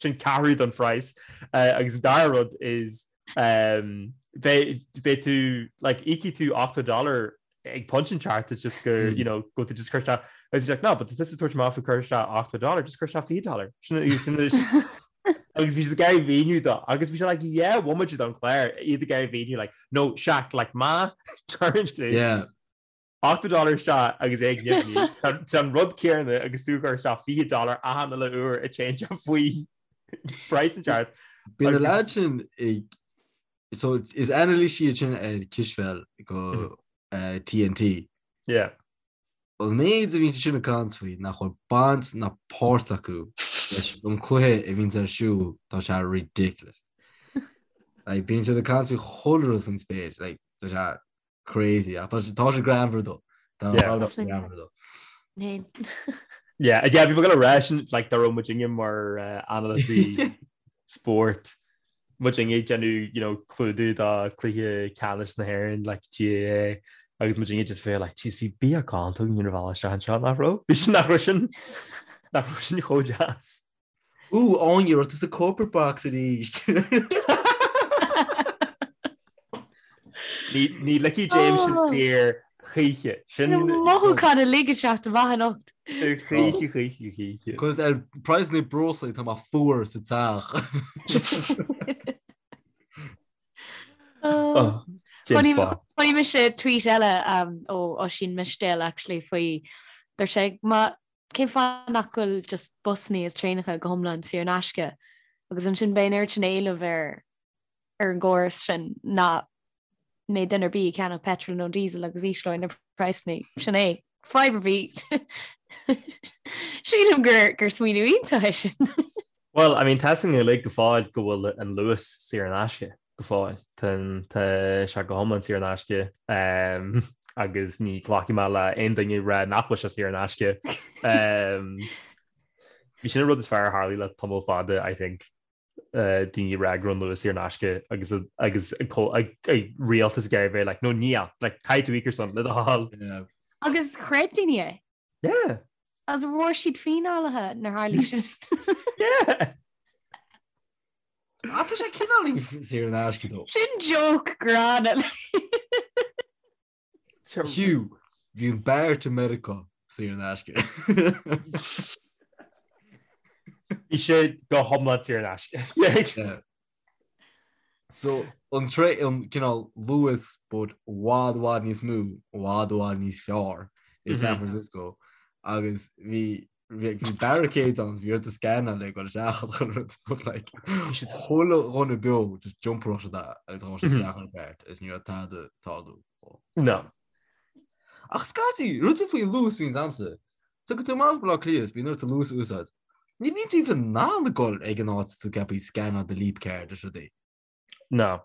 Speaker 1: sin ceathrú don phraghas. Uh, agus an dara rud is um, beidh beidh tú, like, íocfaidh tú 80 dollar ag pointe inteacht it's just go, you know, go tú just cuir isteach agus he's like, no, but tá tusa ag tabhairt amach faoi cuir isteach 80 dollar, just cuir isteach 20 dollar. Sin sin agus bhí siad ag iarraidh mhíniú dó agus bhí sé like yeah, bhomaite don chlár iad ag iarraidh mhíniú like no Shaq like má chuireann tú
Speaker 3: Yeah.
Speaker 1: 80 dollar isteach agus é ag nimhniú tá an rud céanna agus tú ag cur isteach 20 dollar achan uile uair a téann sé faoi praghas inteacht.
Speaker 3: Bíonn na lads sin ag So is anailísí iad sin ar cispheil go TNT.
Speaker 1: Yeah.
Speaker 3: An méid a bhíonn siad sin ag caint faoi nach bhfuil baint ná páirt acu leis an cluiche a bhíonns ar siúl, tá sé ridiculous. Like, bíonn siad ag caint faoi chuile rud faoin spéir, like, tá sé crazy ach tá sé tá sé greannmhar though. Tá
Speaker 1: Yeah.
Speaker 3: rud greannmhar though.
Speaker 2: Féin.
Speaker 1: Yeah, yeah, bhí mé ag gabháil a rá sin like dá raibh muidinne mar uh, anailísí spóirt muidinne ag déanamh you know, clúdú do cluiche ceannais na hÉireann like GAA agus muidinne just bheith like jeez bhí bia galánta againn ar an bhealach isteach anseo nach raibh? Bhí sin nach raibh sin nach raibh sin chomh deas.
Speaker 3: Ooh, Áine, raibh tú sa corporate box arís.
Speaker 1: Ní ní ligfidh James sin
Speaker 2: Oh.
Speaker 1: saor choíche. Sin
Speaker 2: Mothúchán uilig ag teacht amach anocht.
Speaker 1: choíche choíche choíche.
Speaker 3: Cos ar praghas na breoslaí tá mé fuar sa teach.
Speaker 1: Oh, James Bond.
Speaker 2: Chonaic mise tweet eile um, ó Oisín Mistéil actually faoi dúirt sé má Cén fáth nach bhfuil just busannaí is traenacha go hiomlán saor in aisce agus ansin beidh an oiread sin éileamh ar ar an gcóras sin nach mbeidh duine ar bith ag ceannach petrol nó diesel agus ísleoidh na praghsanna. Sin é. Fadhb ar bith. Sílim gur gur smaoineamh iontach é sin.
Speaker 1: Well, I mean, tá a fhios againn uilig go fóill go bhfuil an Luas saor in aisce go fóill. Tá tá sé go hiomlán saor in aisce agus ní ghlacfaidh mé le aon duine ag rá nach bhfuil sé saor in aisce. Bhí sin an rud is fearr a tharlaigh le tamall fada, I think, daoine ag rá go raibh an Luas saor in aisce agus agus rialtas ag iarraidh bheith like, no níl, like, caithfidh tú íoc ar son le do thoil.
Speaker 2: Agus chreid daoine é.
Speaker 1: Yeah.
Speaker 2: Agus bhfuair siad fíneálaithe nuair tharlaigh sin.
Speaker 1: Yeah.
Speaker 3: Ah, tá sé cineál saor in aisce though.
Speaker 2: Sin joke gránna.
Speaker 3: Hugh, bhí an BART i Meiriceá saor in aisce.
Speaker 1: Bhí sé go hiomlán saor in aisce.
Speaker 3: Yeah. So, an tre an cineál Luas but i bhfad i bhfad níos mó, i bhfad i bhfad níos fearr i San Francisco agus bhí bhí barricades ann bhí ort scannáil le dul isteach an rud but like bhí siad chuile dhuine beo just jumparach siad agus ghabh siad isteach ar BART is ní raibh tada ag tarlú.
Speaker 1: No.
Speaker 3: Ach scaití, rud faoin Luas bhíonns a'msa. Tagann tú amach Baile Átha Cliath is bíonn ort an Luas a úsáid. Ní bhíonn tú even in ann a ghoil ag an áit tú ceaptha scannáil do Leap Card is rudaí.
Speaker 1: No.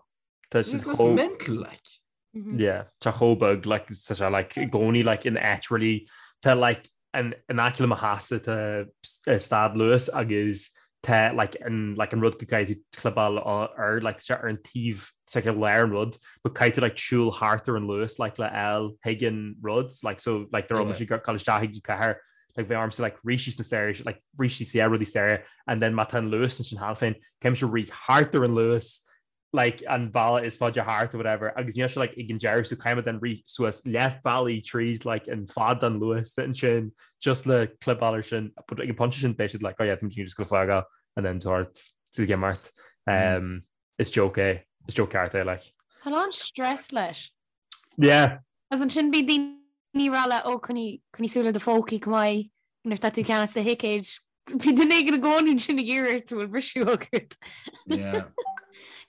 Speaker 1: Tá siad chomh...
Speaker 3: mental like.
Speaker 1: Yeah, tá chomh beag like tá sé like i gcónaí like in áit really tá like an in aice le mo theachsa tá stad Luas agus tá like an like an rud go gcaithfidh tú clibeáil air like tá sé ar an taobh tá sé i lár an rud but caithfidh tú like siúl thart ar an Luas like le fháil chuig an rud like so like dá raibh mise ag dul isteach chuig an cathair like bheadh ormsa like rith síos na stairs like rith síos yeah rudaí staighre and then má tá an Luas ansin cheana féin caithfidh mise rith thart ar an Luas like an bealach is faide thart or whatever agus níl sé like ag an deireadh so caithfidh mé then rith suas leath bealaigh tríd like an fad den Luas ansin just le clibeáil air sin but ag an pointe sin beidh siad like oh yeah tá muid just gonna fágáil and then sort to get mart um, is joke é is joke ceart é like.
Speaker 2: Tá a lán stress leis.
Speaker 1: Yeah.
Speaker 2: As ansin bíonn daoine ag rá leat ó coinnigh coinnigh súil ar do phócaí go maith nuair atá tú ag ceannach do thicéid. Bhí duine éigin i gcónaí ansin ag iarraidh ort bhfuil briseadh agat.
Speaker 3: Yeah.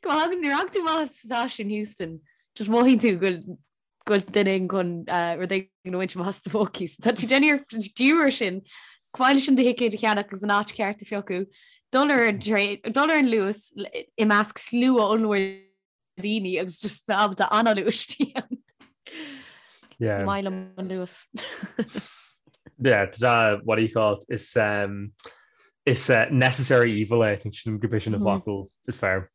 Speaker 2: Go thagann nuair a thagann tú amach as stáisiún Heuston, just mothaíonn tú go bhfuil go bhfuil duine éigin chun rud éigin a bhaint amach as do phócaí. So tá tú déanamh iarracht air sin, chomh maith leis an do thicéad a cheannach agus an áit cheart a phiocadh, dul ar an traein, dul ar an Luas i measc slua ollmhór daoine agus just bheith ábalta análú istigh ann.
Speaker 1: Yeah.
Speaker 2: Maith liom an Luas.
Speaker 1: Yeah, tá what do you call it? Is um, is uh, necessary evil é, I think sin go sin an focal is fearr.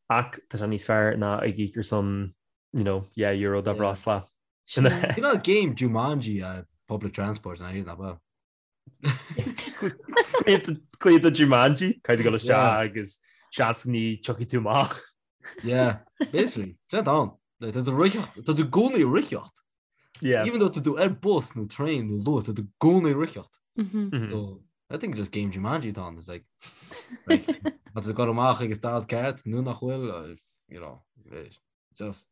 Speaker 1: Ach tá sé níos fearr ná ag íoc ar son you know, yeah, euro do bhreosla.
Speaker 3: You know game Jumanji uh, public transport na na ba.
Speaker 1: Cluiche de Jumanji, caithfidh tú dul isteach agus seans ní tiocfaidh tú amach.
Speaker 3: Yeah, basically, sin atá ann. Like, tá tú ag ritheacht, tá tú i gcónaí ag ritheacht.
Speaker 1: Yeah.
Speaker 3: Even though tá tú ar bus nó train nó Luas, tá tú i gcónaí ag ritheacht.
Speaker 2: Mm -hmm.
Speaker 3: So, I think just game Jumanji atá ann, it's like, like tá tú ag dul amach ag an stad ceart nó nach bhfuil, uh, you know, just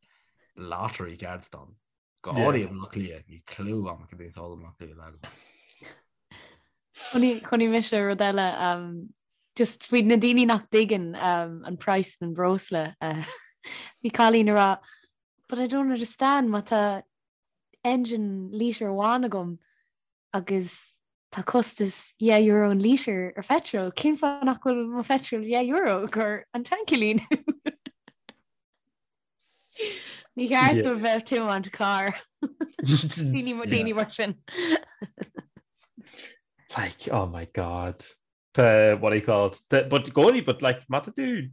Speaker 3: lottery ceart atá ann. Go háirithe i mBaile Átha Cliath, níl clue agam cad é atá i mBaile Átha Cliath le.
Speaker 2: Chonaic mise rud eile um, just faoi na daoine nach dtuigeann um, an price den breosla. Uh, bhí cailín ag rá, but I don't understand má tá engine lítear amháin agam agus tá costas €10 an lítear ar phetrol, cén fáth nach bhfuil mo phetrol €10 gur an tanc a líonadh? Ní cheart dóibh bheith ag tiomáint carr. Daoine mar sin.
Speaker 1: Like, oh my God. Tá, what do you call it? Tá, but gcónaí, but like, má tá tú,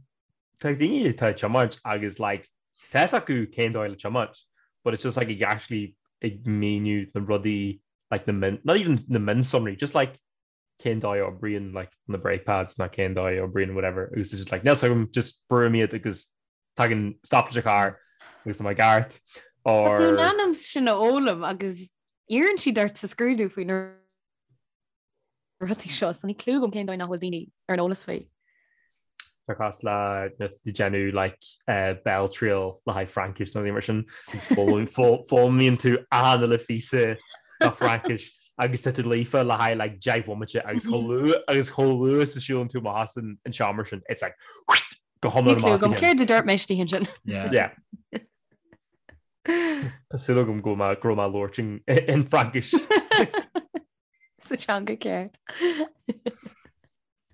Speaker 1: tá daoine atá ag tiomáint agus like, tá fhios acu cén dóigh le tiomáint, but it's just like ag actually ag míniú na rudaí, like na min, not even na mionsonraí, just like cén dóigh a oibríonn like na brake pads ná cén dóigh a oibríonn whatever, agus it's just like, níl fhios agam, just brúim iad agus tagann stop leis an charr agus tá mé i gceart,
Speaker 2: or. Tá tú in ainm sin a fhoghlaim agus iarrann siad ort sa scrúdú faoi na rudaí seo, so níl clue agam cén dóigh nach bhfuil daoine ar an eolas faoi.
Speaker 1: Tá cosúil le nuair atá tú ag déanamh like béaltriail le haghaidh Fraincis nó mar sin agus foghlaimíonn tú achan uile phíosa de Fraincis agus tá tú líofa le haghaidh like 10 bhomaite agus chomh luath agus chomh luath is a siúlann tú amach as an seomra sin it's like go hiomlán
Speaker 2: Níl clue agam céard a dúirt mé istigh ansin.
Speaker 1: Yeah. Tá súil agam go raibh mé ag labhairt in Fraincis.
Speaker 2: Sa teanga ceart.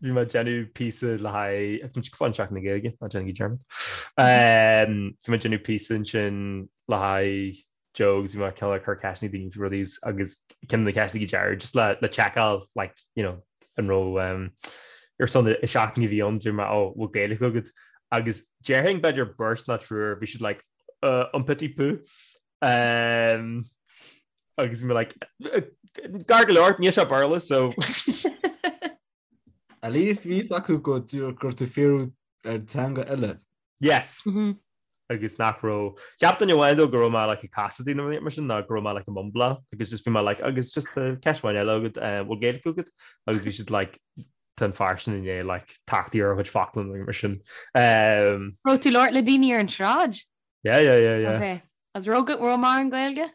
Speaker 1: Bhí mé ag déanamh píosa le haghaidh fan Seachtain na Gaeilge, ná déanaigí dearmad. Bhí mé ag déanamh píosa ansin le haghaidh Joe agus bhí mé cineál ag cur ceisteanna daoine faoi rudaí agus ceann de na ceisteanna go deireadh just le le checkáil like you know an raibh um, ar son i seachtain a bhí ann dúirt mé ó bhfuil Gaeilge agat agus déarfainn b'fhéidir beirt nó triúr bhí siad like uh, un petit peu um, Agus bhí mé like, gar go leor, níl sé Béarla, so.
Speaker 3: At least bhí fhios acu go raibh tú fiafraí ar teanga eile.
Speaker 1: Yes. Mm-hmm. Agus nach raibh. Cheap duine amháin though go raibh mé like ag casadh nó mar sin ná go raibh mé like ag mumbláil agus just bhí mé like agus just uh, ceist amháin eile agat uh, bhfuil Gaeilge agat agus bhí siad like tá an fear sin i ndiaidh like tachtadh ar a chuid focla nó mar sin.
Speaker 2: Um, Raibh tú ag labhairt le daoine ar an tsráid?
Speaker 1: Yeah, yeah, yeah, yeah.
Speaker 2: Okay. Agus raibh raibh mórán Gaeilge?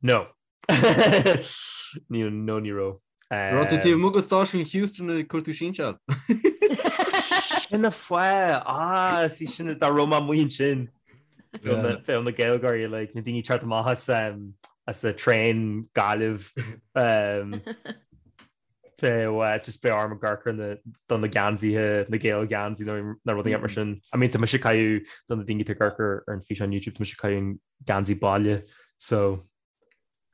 Speaker 1: No. Ní no ní raibh.
Speaker 3: Raibh tú taobh amuigh de stáisiún Heuston ag cuartú sinseáil.
Speaker 1: Sin an fáth ah sí sin dá raibh mé amuigh ansin. Bheadh na Gaeilgeoirí like na daoine teacht amach as um, as a train Gaillimh um, Bheadh just beidh orm amharc ar na do na geansaithe, na Gael geansaí nó na rudaí mar sin. I mean tá mise ag caitheamh do na daoine atá ag amharc ar an físeán YouTube, tá mise ag caitheamh an geansaí baile so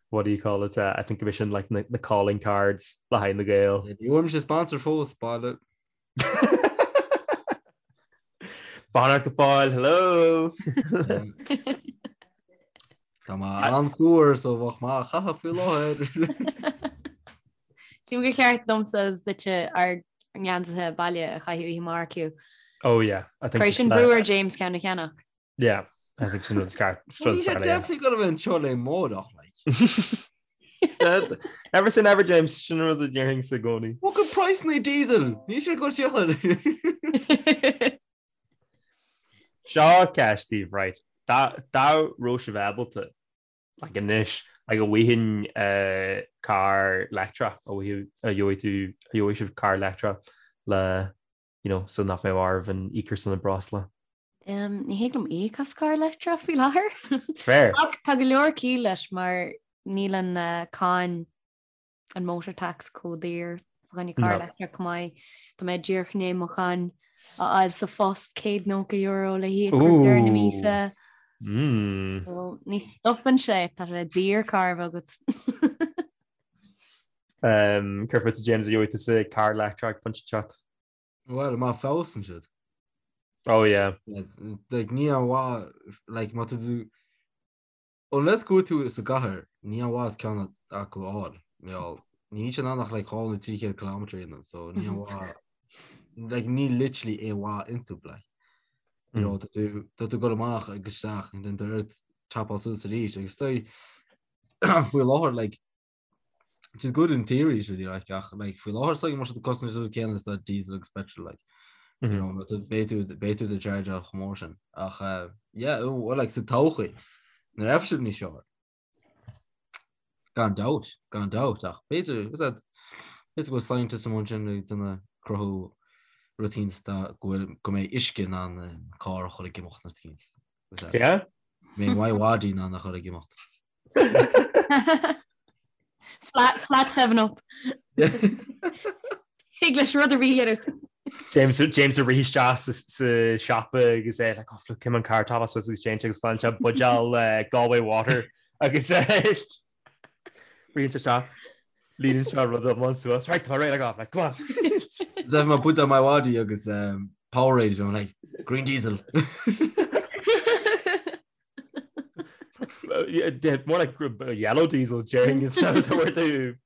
Speaker 1: what do you call it? Uh, I think go sin like na, na calling cards le haghaidh na Gael.
Speaker 3: Ní bhfuair mise sponsor fós baile.
Speaker 1: Fanacht go fóill, hello!
Speaker 3: Tá mé an-fhuar so bheadh maith a chaitheamh faoi láthair.
Speaker 2: Sílim gur cheart domsa is duitse ár ngeansaithe baile a chaitheamh oíche amárach Hugh.
Speaker 1: Oh yeah. I think
Speaker 2: Cuir sin brú ar James ceann a cheannach.
Speaker 1: Yeah, I think sin rud is ceart.
Speaker 3: Bhí sé definitely gonna bheith anseo le amárach
Speaker 1: like. Never say never James, sin rud a déarfainn i gcónaí.
Speaker 3: Look at price na diesel, ní sé go síochad.
Speaker 1: Seo ceist daoibh, right. Dá raibh sibh ábalta, like anois, Like an bhfaighinn carr leictreach, an bhfaighidh, an gheobhaidh tú, an gheobhaidh sibh carr leictreach le, you know, so nach mbeadh oraibh an íoc ar son an breosla.
Speaker 2: Ní thig liom íoc as carr leictreach faoi láthair.
Speaker 1: Fair.
Speaker 2: Ach tá go leor ciall leis mar níl an cáin an motor tax chomh daor fá choinne carr leictreach chomh maith. Tá mé díreach i ndiaidh mo cháin a fháil sa phost €190 le híoc roimh deireadh na míosa. So, ní stopann sé, tá sé daor carr a bheith agat.
Speaker 1: Céard fútsa James an gheobhaidh tusa carr leictreach pointe inteacht?
Speaker 3: Well, má feabhsaíonn siad.
Speaker 1: Oh yeah.
Speaker 3: Like, ní aon mhaith, like, má tá tú Unless go bhfuil tú sa gcathair, ní aon mhaith ceann acu a fháil. Níl ní siad in ann ach like 200 nó 300 kilometre a dhéanamh, so ní aon mhaith like ní literally aon mhaith iontu like. You know, tá tú tá tú ag dul amach agus isteach and then tá ort tapáil suas arís agus tá faoi láthair like It's good in theory is really like ach like faoi láthair so mar tá costas an céanna is tá diesel agus petrol like you mm-hmm. know but beidh tú beidh tú do charge ar chomh mór sin ach uh, yeah oh, well like sa todhchaí nuair a bheidh siad níos fearr gan dabht gan dabht ach b'fhéidir that b'fhéidir go bhfuil scientists among sin ag déanamh cruthú rud éicint tá go bhfuil go mbeidh uisce in ann an carr a chur ag imeacht nó éicint
Speaker 1: Yeah?
Speaker 3: Mbeidh my wadi in ann a chur ag imeacht.
Speaker 2: Flat, flat 7 up. Thig leis rud ar bith a dhéanamh.
Speaker 1: James James ag rith isteach sa sa siopa agus é like, oh, look, cim an car top suas agus James agus faigheann sé buidéal eh, Galway water agus eh, ritheann sé isteach líonann sé rud iomlán suas. Right, tá réidh like, come on.
Speaker 3: Zef má put on my wadi agus um, Powerade, I'm like, green diesel.
Speaker 1: More like yellow diesel déarfainn instead of tabhairt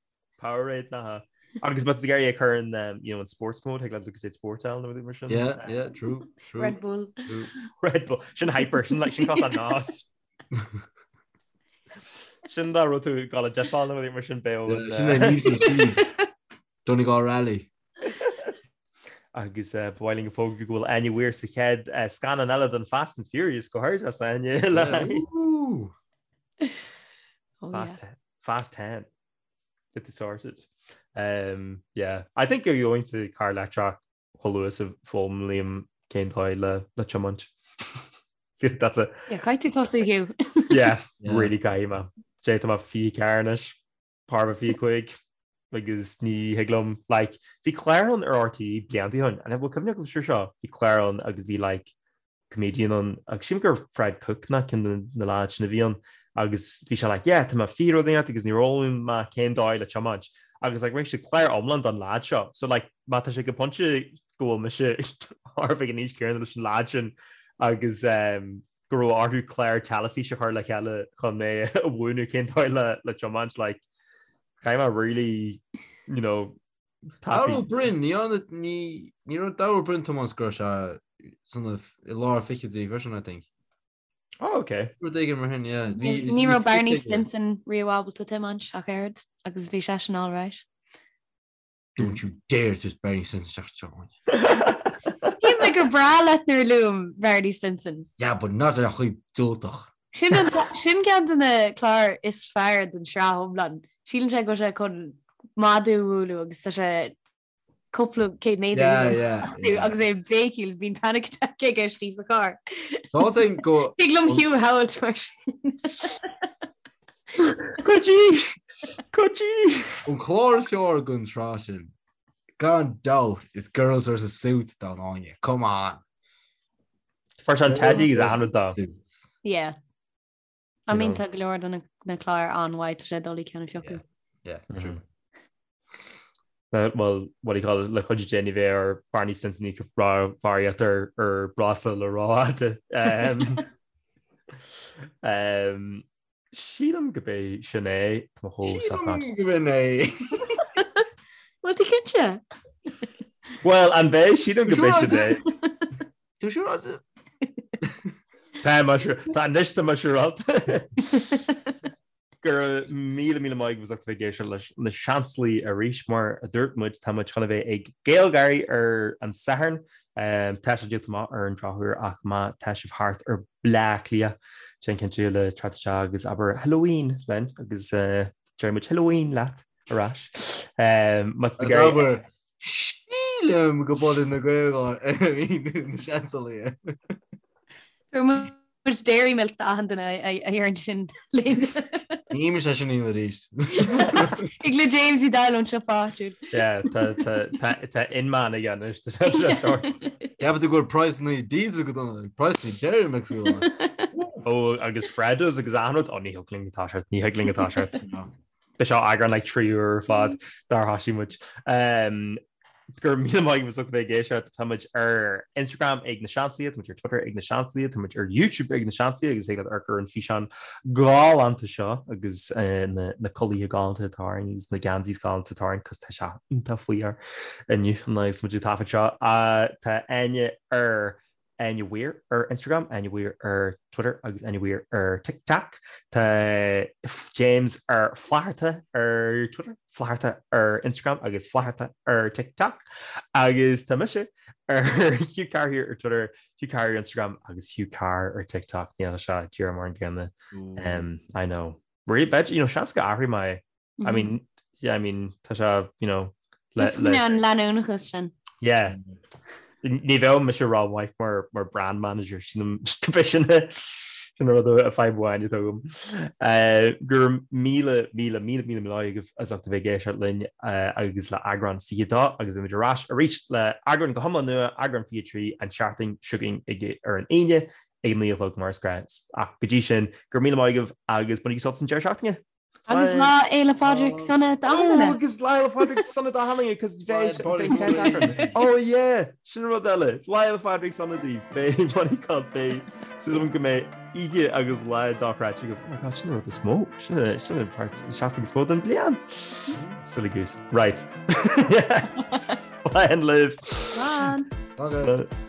Speaker 1: Powerade ná. Agus má tá tú ag iarraidh é a chur in um, you know, in sports mode, thig leat Lucozade Sport ann nó mar sin.
Speaker 3: Yeah, yeah, true, true.
Speaker 2: Red Bull.
Speaker 3: True.
Speaker 1: Red Bull. Sin hyper, sin like sin cos an nás. Sin dá raibh tú ag dul ag difeáil nó mar sin beo.
Speaker 3: Yeah, Sin é Need for Speed. Donegal Rally.
Speaker 1: Agus ba mhaith linn a fhógairt go bhfuil Áine Weir sa chéad scannán eile den Fast and Furious go háirithe as Áine le Fast Fast 10. Get it sorted. Um, yeah. I think you're going to car leictreach chomh luath is a fhoghlaimím cén dóigh le le tiomáint. Feel like that's a
Speaker 2: Yeah, caithfidh tú tosú Hugh.
Speaker 1: Yeah, really caithfidh mé. Jay tá mé 24 anois. Par 25 agus ní thig liom like bhí clár ann ar RTÉ blianta ó shin and bhfuil cuimhne agat ar seo bhí clár ann agus bhí like comedian ann agus sílim gur Fred Cooke ná ceann de na lads sin a bhí ann agus bhí sé like yeah tá mé fiche rud éigin agus níor fhoghlaim mé cén dóigh le tiomáint agus like rinne siad clár iomlán don lad seo so like má tá sé go pointe go bhfuil mise thart ag an aois céanna leis an lad sin agus um, go raibh orthu clár teilifíse a chur le chéile chun mé a mhúineadh cén dóigh le le tiomáint like caithfidh mé really you know
Speaker 3: Dara Ó Broin ní ní ní raibh Dara Ó Broin tiomáint go raibh sé san i lár fichidí freisin I think.
Speaker 1: Oh, okay.
Speaker 3: Rud éigin mar sin, yeah.
Speaker 2: Ní raibh Barney Stinson riamh ábalta tiomáint ach oiread agus bhí seisean all right.
Speaker 3: Don't you dare just Barney Stinson isteach seo.
Speaker 2: Shíl mé gur breá leat nuair a luaim Barney Stinson.
Speaker 3: Yeah, but not ar chaoi diúltach.
Speaker 2: Sin an sin ceann de na cláir is fearr den sraith iomlán. Síleann sé go bhfuil sé chun madadh a bhualadh agus tá sé cúpla céad méadar
Speaker 3: Yeah, yeah, yeah.
Speaker 2: agus é ag béicíl is bíonn panic attack aige istigh sa charr.
Speaker 3: Tá sé go
Speaker 2: Thig liom Hugh a shamhailt mar sin.
Speaker 1: Cuidí! Cuidí!
Speaker 3: An clár is fearr den tsraith sin, gan dabht, is Girls vs Suits don Áine. Come on!
Speaker 1: Fuair sé an Teddy agus an rud dó.
Speaker 3: Suits.
Speaker 2: Yeah. I mean tá go leor de na cláir an-mhaith tá sé doiligh ceann a phiocadh.
Speaker 3: Yeah, true.
Speaker 1: Well, what do you call it, le cuidiú Dé ní bheidh ar Barney Stinson ag barraíocht ar ar breosla le rófhada. Um, Sílim go b'é sin é Tá mo chomh
Speaker 3: Sílim go b'in é.
Speaker 2: Bhfuil tú cinnte?
Speaker 1: Well, an b'é sílim go b'é sin é.
Speaker 3: Tú siúráilte?
Speaker 1: Tá mar tá anois tá mar siúráilte. Go raibh míle míle maith agaibh as ucht a bheith ag éisteacht leis na Seansálaithe arís. Mar a dúirt muid, tá muid chun a bheith ag GaelGÁIRÍ ar an Satharn. Tá sé díolta amach ar an drochuair ach má tá sibh thart ar Bleá Cliath, déan cinnte le teacht isteach agus abair Halloween linn agus déarfaidh muid Halloween leat ar ais. Má tá tú ag
Speaker 3: iarraidh. Abair Sílim go b'ionann na GaelGÁIRÍ na Seansálaithe.
Speaker 2: Tabharfaidh muid Dairy Milk d'achan duine a deireann sin linn.
Speaker 3: Ní mise sin í arís.
Speaker 2: Ag le James i dal ón siopa áitiúil.
Speaker 1: Yeah, tá tá tá tá inman aige anois tá sé sort.
Speaker 3: Ceapann tú go bhfuil praghsanna diesel go dona, praghsanna Dairy Milk go dona.
Speaker 1: Ó agus Freddos agus achan rud, ó ní thig linn atá siad, ní thig linn atá siad. B'é seo eagrán like 3 uair ar fad dár thosaigh muid. Go raibh míle maith agaibh as ucht a bheith ag éisteacht. Tá muid ar Instagram ag na Seansálaithe, tá muid ar Twitter ag na Seansálaithe, tá muid ar YouTube ag na Seansálaithe agus thig leat amharc ar an físeán galánta seo agus na na culaithe galánta atá orainn agus na geansaithe galánta atá orainn cos tá sé iontach fuar inniu an lá agus muid ag taifead seo. Tá Áine ar Áine Weir ar Instagram, Áine Weir ar Twitter agus Áine Weir ar TikTok. Tá James ar Flatharta ar Twitter, Flatharta ar Instagram agus Flatharta ar TikTok. Agus tá mise ar Hugh Carr here ar Twitter, Hugh Carr ar Instagram agus Hugh Carr ar TikTok. Níl sé díreach mar an gcéanna. Um, I know. Really, bet, you know, seans go athróidh mé I mean, yeah, I mean, tá sé, you know,
Speaker 2: le, Just le, an leanúnachas sin.
Speaker 1: Yeah. Ní bheadh mise rómhaith mar, mar brand manager sin sin sin rud a fadhb amháin atá agam. Uh, go raibh míle míle míle míle míle agaibh as ucht a bheith ag éisteacht linn uh, agus le eagrán 22 agus beimid ar ais arís le eagrán go hiomlán nua eagrán 23 an tseachtain seo chugainn ag ar an Aoine ag 9 a chlog mar is gnáth. Ach go dtí sin, go raibh míle maith agaibh agus bainigí sult as an deireadh seachtaine.
Speaker 2: Agus Lá Fhéile Pádraig sona
Speaker 1: d'achan duine. Agus Lá Fhéile Pádraig sona d'achan duine cos bheidh Oh yeah, sin rud eile. Lá Fhéile Pádraig sona daoibh. Beidh what do you call it? Beidh súil agam go mbeidh oíche agus lá dochreidte agaibh. Oh my god, sin an rud is mó. Sin sin an part seachtain is mó den bliain. Silly goose. Right. Slán libh.
Speaker 2: Slán.
Speaker 3: Slán.